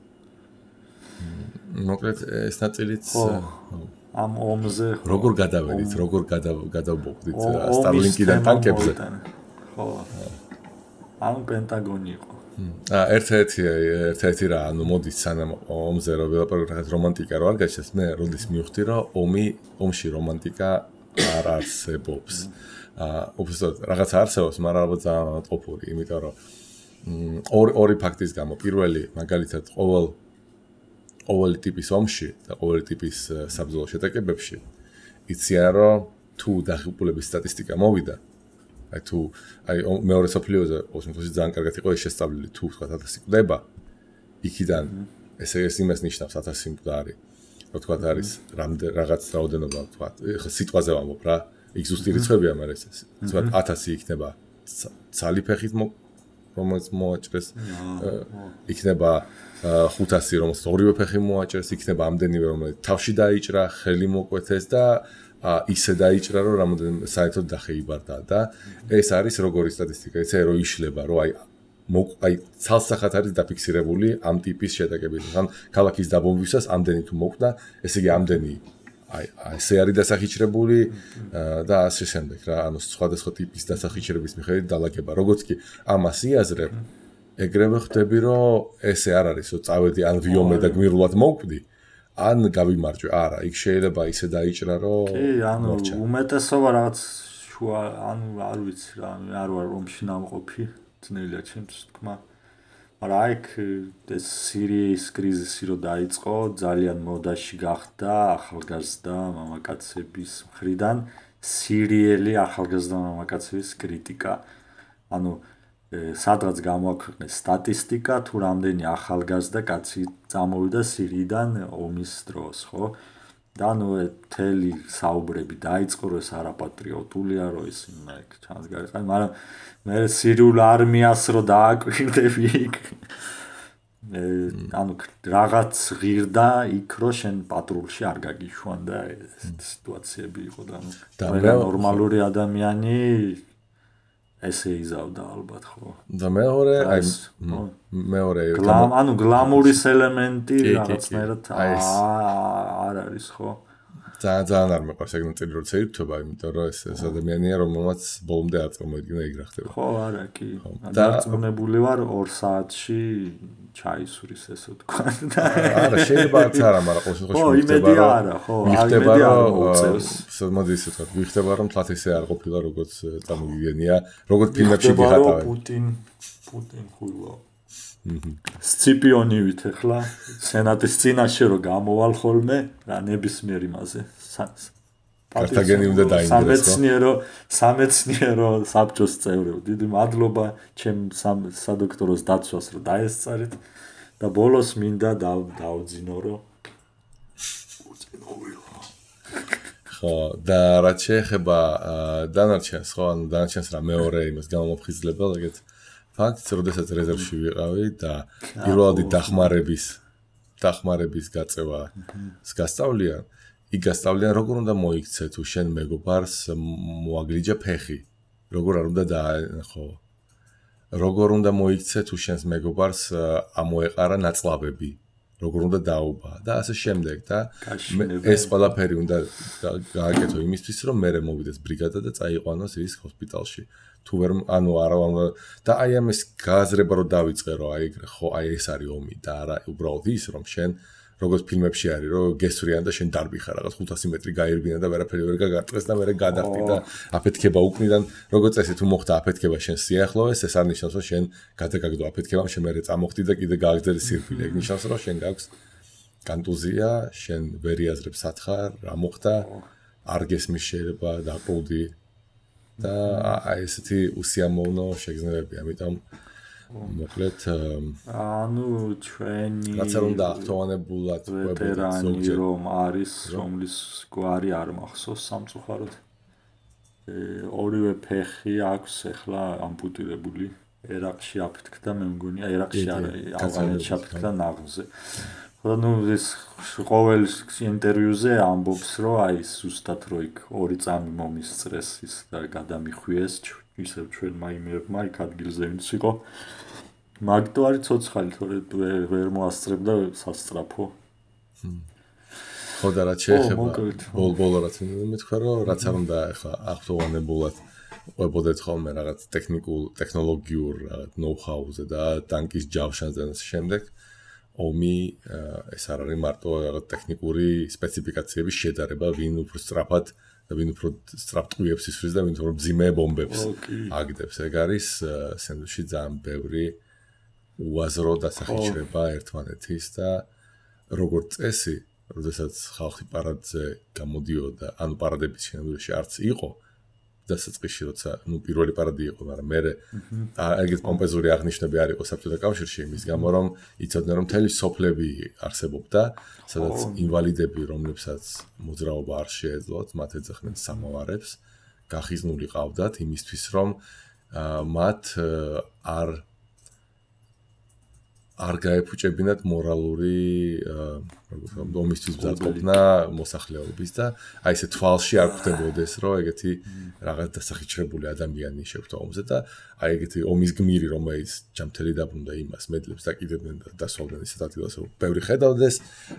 მოკლედ ეს ნაწილიც ამ ომზე როგორ გადავედით, როგორ გადავბოხდით სტარლინკიდან ტანკებზე? ხო. ამ პენტაგონი იყო. ერთ-ერთი რა, ანუ მოდის სანამ ომზე რომ რაღაც რომანტიკა რო არ გაჩნდეს, მე როდის მივხვდი რომ ომში რომანტიკა არ არსებობს. უბრალოდ რაღაც არსებობს, მაგრამ ალბათ ძალიან ყოფური, იმიტომ რომ ორი ფაქტის გამო, პირველი მაგალითად ყოველი ტიპის ომში და ყოველი ტიპის საბრძოლო შეტაკებებში იციან რომ თუ დაღუპულების სტატისტიკა მოვიდა, აი მეორე სოფლიოზე ოსმოსი ძალიან კარგად იყო შესწავლილი, თუ თქვა 1000 კვდება, იქიდან ეს იმას ნიშნავს 1000 მკვდარი, რო თქვა არის რაღაც რაოდენობა, თქვა ხა სიტყვაზე ვამბობ რა, იქ ზუსტი რიცხვებია, მაგრამ ეს თქვა 1000 იქნება ცალი ფეხით რომელიც მოაჭრეს, იქნება 500 რომელსაც ორივე ფეხი მოაჭრეს, იქნება ამდენივე რომელიც თავში დაიჭრა, ხელი მოკვეთეს და ისე დაიჭრა რომ რამოდენიმე საერთოდ დახეიბარდა და ეს არის როგორი სტატისტიკა, ესე რომ იშლება, რომ აი ცალსახად არის დაფიქსირებული ამ ტიპის შეტაკებები. ან ქალაქის დაბომბვისას ამდენი თუ მოკვდა, ესე იგი ამდენი აი ესე არის დასახიჩრებული და ასე შემდეგ რა, ანუ სხვადასხვა ტიპის დასახიჩრების მიხედვით დალაგება. როგორც კი ამას იაზრებ, ეგრევე ხვდები რომ ესე არ არის, რომ წავედი ან ვიომე და გმირულად მოვკვდი. ან გავიმარჯვე, არა, იქ შეიძლება ისე დაიჭრა, რომ კი, ანუ უმეტესობა რაღაც შუა, ანუ არ ვიცი რა, არ ვარ რომში ნამყოფი, ძნელია ჩემთვის თქმა. მაგრამ აიქ ეს სირიის კრიზისი რო დაიწყო, ძალიან მოდაში გახდა ახალგაზრდა მამაკაცების მხრიდან სირიელი ახალგაზრდა მამაკაცების კრიტიკა. ანუ სადღაც გამოაქვეყნეს სტატისტიკა, თუ რამდენი ახალგაზრდა კაცი წამოვიდა სირიიდან ომის დროს, ხო? და ნუ მთელი საუბრები დაიწყო, რომ ეს არაპატრიოტულია, რომ ის იქ ჩანს გარიყანი, მაგრამ მე სირიულ არმიას რო დააკვირდები იქ. ანუ რაღაც ღირდა იქ რო შენ პატრულში არ გაგიშვან და ეს სიტუაციები იყო და ნორმალური ადამიანი ესე იზავდა ალბათ, ხო? და მეორე ანუ გლამურის ელემენტი რაღაცნაირად არ არის, ხო? ძალიან არ მეყვარს ეგ ნაწილი როცა ირთვება, იმიტომ რომ ეს ადამიანია, რომელმაც ბოლომდე არ წარმოიდგინა ეგ რა ხდება. ხო, არა, კი. დარწმუნებული ვარ 2 საათში ჩაისურის ესე ვთქვა და არა, შეიძლება არც არა, მაგრამ ყოველ შემთხვევაში ხო, იმედი არა, ხო, იმედი არ მოუწევს. მოდი ისე ვთქვა, ვიხდება რომ თლათ ესე არ ყოფილა როგორც წარმოგიგენია, როგორც ფილმებში გიხატავენ. პუტინ ხულა. სციპიონივით ახლა სენატის წინაშე რო გამოვალ ხოლმე რა ნებისმიერ იმაზე კართაგენი უნდა დაინგრესო სამეცნიერო საბჭოს წევრები დიდი მადლობა ჩემ სადოქტოროს დაცვას რომ დაესწარით და ბოლოს მინდა დავძინო რომ ხო და რაც შეეხება დანარჩენს ხო ანუ დანარჩენს რა მეორე იმას გამომფხიზლებელ ეგეთ ფაქტს, როდესაც რეზერვში ვიყავი და პირველადი დახმარების გაწევას გასწავლიან, იქ გასწავლიან როგორ უნდა მოიქცე თუ შენ მეგობარს მოაგრიჯა ფეხი, როგორ არ უნდა ხო, როგორ უნდა მოიქცე თუ შენს მეგობარს ამოეყარა ნაწლავები, როგორ უნდა დაუბა და ასე შემდეგ და ეს ყველაფერი უნდა გააკეთო იმისთვის, რომ მე მოვიდეს ბრიგადა და წაიყვანოს ის ჰოსპიტალში. თუ ვერ ანუ არა და აი ამის გააზრება რომ დავიწყე რომ აი ხო აი ეს არის ომი და არა უბრალოდ ის რომ შენ როგორც ფილმებში არის რომ გესვრიან და შენ დარბიხარ რაღაც 500 მეტრი გაირბინა და ვერაფერი ვერ გაგარტყეს და მე გადახტი და აფეთქება უკნიდან როგორც წესი თუ მოხდა აფეთქება შენ სიახლოვეს ეს არ ნიშნავს რომ შენ გადაგაგდო აფეთქებამ შენ მე წამოხდი და კიდე გააგრძელე სირფილე ეგ ნიშნავს რომ შენ გაქვს კონტუზია შენ ვერ იაზრებ სათხარ რა მოხდა არ გესმის შეიძლება დაყოლდი და აი ესეთი უსიამოვნო შეგრძნებები, ამიტომ მოკლედ ანუ ჩვენი რაც არ უნდა ახტოვანებულად ვეტერანი რომ არის რომლის გვარი არ მახსოვს სამწუხაროდ ორივე ფეხი აქვს ახლა ამპუტირებული ერაყში აფეთქდა მე მგონია ერაყში არა ავღანეთში აფეთქდა ნაღზე ну ეს ყოველ ინტერვიუზე ამბობს რომ აი ზუსტად რო იქ 2 წამი მომისწრეს ის და გადამიხვიეს ისევ ჩვენ მაიმერმა იქ ადგილზე ვინც იყო მაგდო არის ცოცხალი თორე ვერ მოასწრებდა სასწრაფო ხო და რაც შეეხება ბოლბოლო რაც მეთქვა რომ რაც არ უნდა ახლა ახტოვანებულად ყვებოდეთ ხოლმე რაღაც ტექნოლოგიურ რაღაც ნოუ-ჰაუზე და ტანკის ჯავშანზე და შემდეგ ომი ეს არ არის მარტო რაღაც ტექნიკური სპეციფიკაციების შედარება, ვინ უფრო სწრაფად და ვინ უფრო სწრაფ ტყუებს ისვრის და ვინ უფრო მძიმე ბომბებს აგდებს. ეგ არის სენდვიჩში ძალიან ბევრი უაზრო დასახიჩრება ერთმანეთის და როგორც წესი, როდესაც ხალხი პარადზე გამოდიოდა, ანუ პარადების შენობაში არც იყო დასაწყისში როცა ნუ პირველი პარადი იყო, მაგრამ მე ეგეთ პომპეზური აღნიშვნები არ იყო საბჭოთა კავშირში იმის გამო რომ იცოდნენ რომ მთელი სოფლები არსებობდა, სადაც ინვალიდები, რომლებსაც მოძრაობა არ შეეძლოთ, მათ ეძახდნენ სამავარებს, გახიზნული ყავდათ იმისთვის რომ მათ არ გაეფუჭებინათ მორალური ომისთვის მზადყოფნა მოსახლეობის და აი ესე თვალში არ ხვდებოდეს რომ ეგეთი რაღაც დასახიჩრებული ადამიანი შეხვდა ომზე და აი ეგეთი ომის გმირი რომელიც ჯამთელი დაბრუნდა იმას მედლებს დაკიდებდნენ და დასვავდნენ ისეთ ადგილას რომ ბევრი ხედავდეს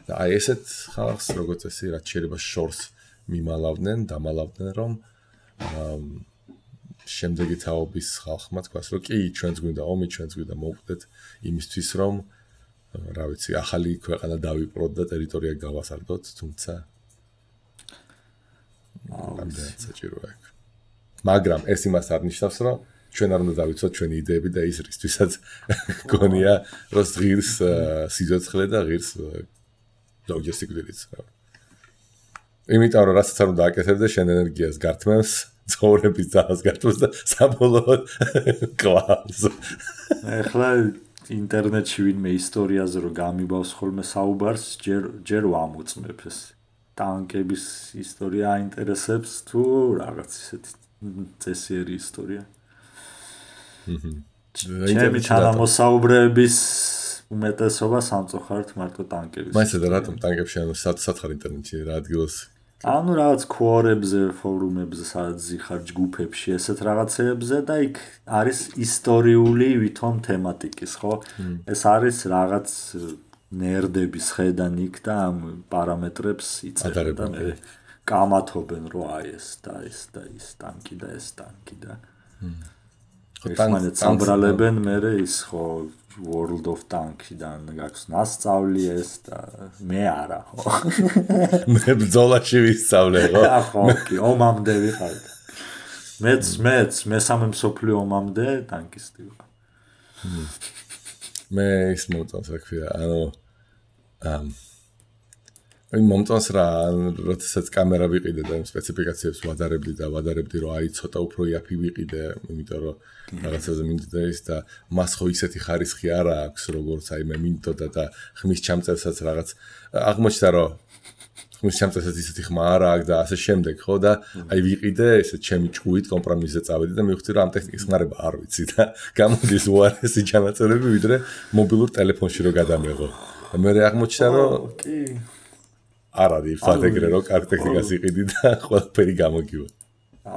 და აი ესეთ ხალხს როგორც წესი რაც შეიძლება შორს მიმალავდნენ დამალავდნენ რომ შემდეგი თაობის ხალხმა თქვას რომ კი ჩვენც გვინდა ომი ჩვენც გვინდა მოვკვდეთ იმისთვის რომ რა ვიცი ახალი ქვეყანა დავიპყროთ და ტერიტორია გავასარდოთ თუმცა ამდენად საჭიროა მაგრამ ეს იმას არ ნიშნავს რომ ჩვენ არ უნდა დავიცოთ ჩვენი იდეები და ის რისთვისაც გონია რომ ღირს სიცოცხლე და ღირს ლოგისტიკით იმიტომ რომ რასაც არ უნდა აკეთებდე შენ ენერგიას გართმევს ცხოვრების ძალას გართმევს და საბოლოოდ კლავს ახლა ინტერნეტში ვინმე ისტორიაზე რო გამიბავს ხოლმე საუბარს ჯერ ვამოწმებ ეს ტანკების ისტორია აინტერესებს თუ რაღაც ისეთი წესიერი ისტორია ჩემი თანამოსაუბრეების უმეტესობა სამწუხაროდ მარტო ტანკების მაინც და რატომ ტანკებში ანუ სათხარ ინტერნეტში რა ადგილას ანუ რაღაც ქუორებზე, ფორუმებზე, სადაც ზიხარ ჯგუფებში, ესეთ რაღაცეებზე და იქ არის ისტორიული ვითომ თემატიკის, ხო? ეს არის რაღაც ნერდების ხედან იქ და ამ პარამეტრებს იწერდა და მე კამათობენ რომ აი ეს და ეს და ის ტანკი და ეს ტანკი და ერთმანეთს ამბრალებენ მე ის ხო World of Tanks-დან გაქვს ნასწავლი ეს და მე არა ხო მე ბრძოლაში ვისწავლე ხო კი ომამდე ვიყავ მეც მესამე მსოფლიო ომამდე ტანკისტი ვიყავ მე ის მომწონს რა ქვია ანუ მომწონს რა როდესაც კამერა ვიყიდე და სპეციფიკაციებს ვადარებდი რომ აი ცოტა უფრო იაფი ვიყიდე იმიტომ რომ რაღაცაზე მინდოდა ის და მას ხო ისეთი ხარისხი არა აქვს როგორც აი მე მინდოდა და ხმის ჩამწევსაც რაღაც აღმოჩნდა რომ ხმის ჩამწევსაც ისეთი ხმა არა აქვს და ასე შემდეგ ხო და აი ვიყიდე ესე ჩემი ჭუით კომპრომისზე წავედი და მივხვდი რომ ამ ტექნიკის ხმარება არ ვიცი და გამოდის უარესი ჩანაწერები ვიდრე მობილურ ტელეფონში რო გადამეღო და მე აღმოჩნდა რომ კი არ არის ფაქტეგრე რომ კარგ ტექნიკას იყიდი და ყველაფერი გამოგივა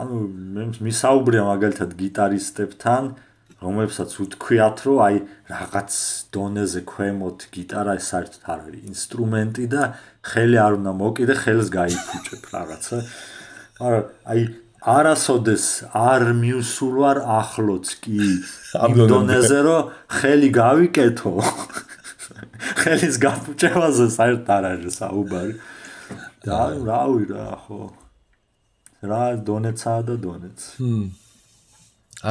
ანუ მე მისაუბრია მაგალითად გიტარისტებთან რომლებსაც უთქვიათ რომ აი რაღაც დონეზე ქვემოთ გიტარა ეს საერთოდ არ არის ინსტრუმენტი და ხელი არ უნდა მოკიდე ხელს გაიფუჭებ რაღაცა მაგრამ აი არასოდეს არ მივსულვარ ახლოც კი იმ დონეზე რომ ხელი გავიკეთო ხელის გაფუჭებაზე საერთოდ არ არის საუბარი და რავი რა ხო რა დონეცაა და დონეც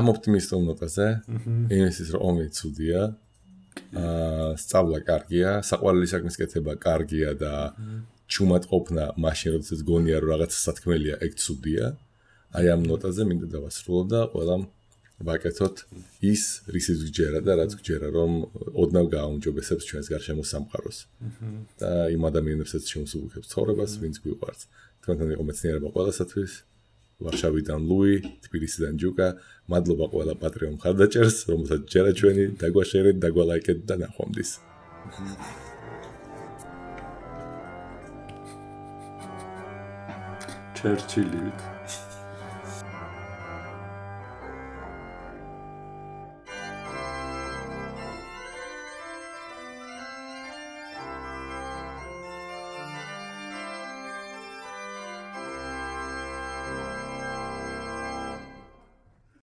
ამ ოპტიმისტურ ნოტაზე იმისთვის რომ ომი ცუდია სწავლა კარგია საყვარელი საქმის კეთება კარგია და ჩუმად ყოფნა მაშინ როდესაც გონია რომ რაღაცა სათქმელია ეგ ცუდია აი ამ ნოტაზე მინდა დავასრულო და ყველამ ვაკეთოთ ის რისიც გჯერა და რაც გჯერა რომ ოდნავ გააუმჯობესებს ჩვენს გარშემო სამყაროს და იმ ადამიანებსაც შემოსუბუქებს ცხოვრებას ვინც გვიყვარს თქვენთან იყო მეცნიერება ყველასათვის ვარშავიდან ლუი თბილისიდან ჯუკა მადლობა ყველა პატრიონ მხარდაჭერს რომელსაც ჯერა ჩვენი დაგვაშერეთ დაგვალაიკეთ და ნახვამდის ჩერჩილივით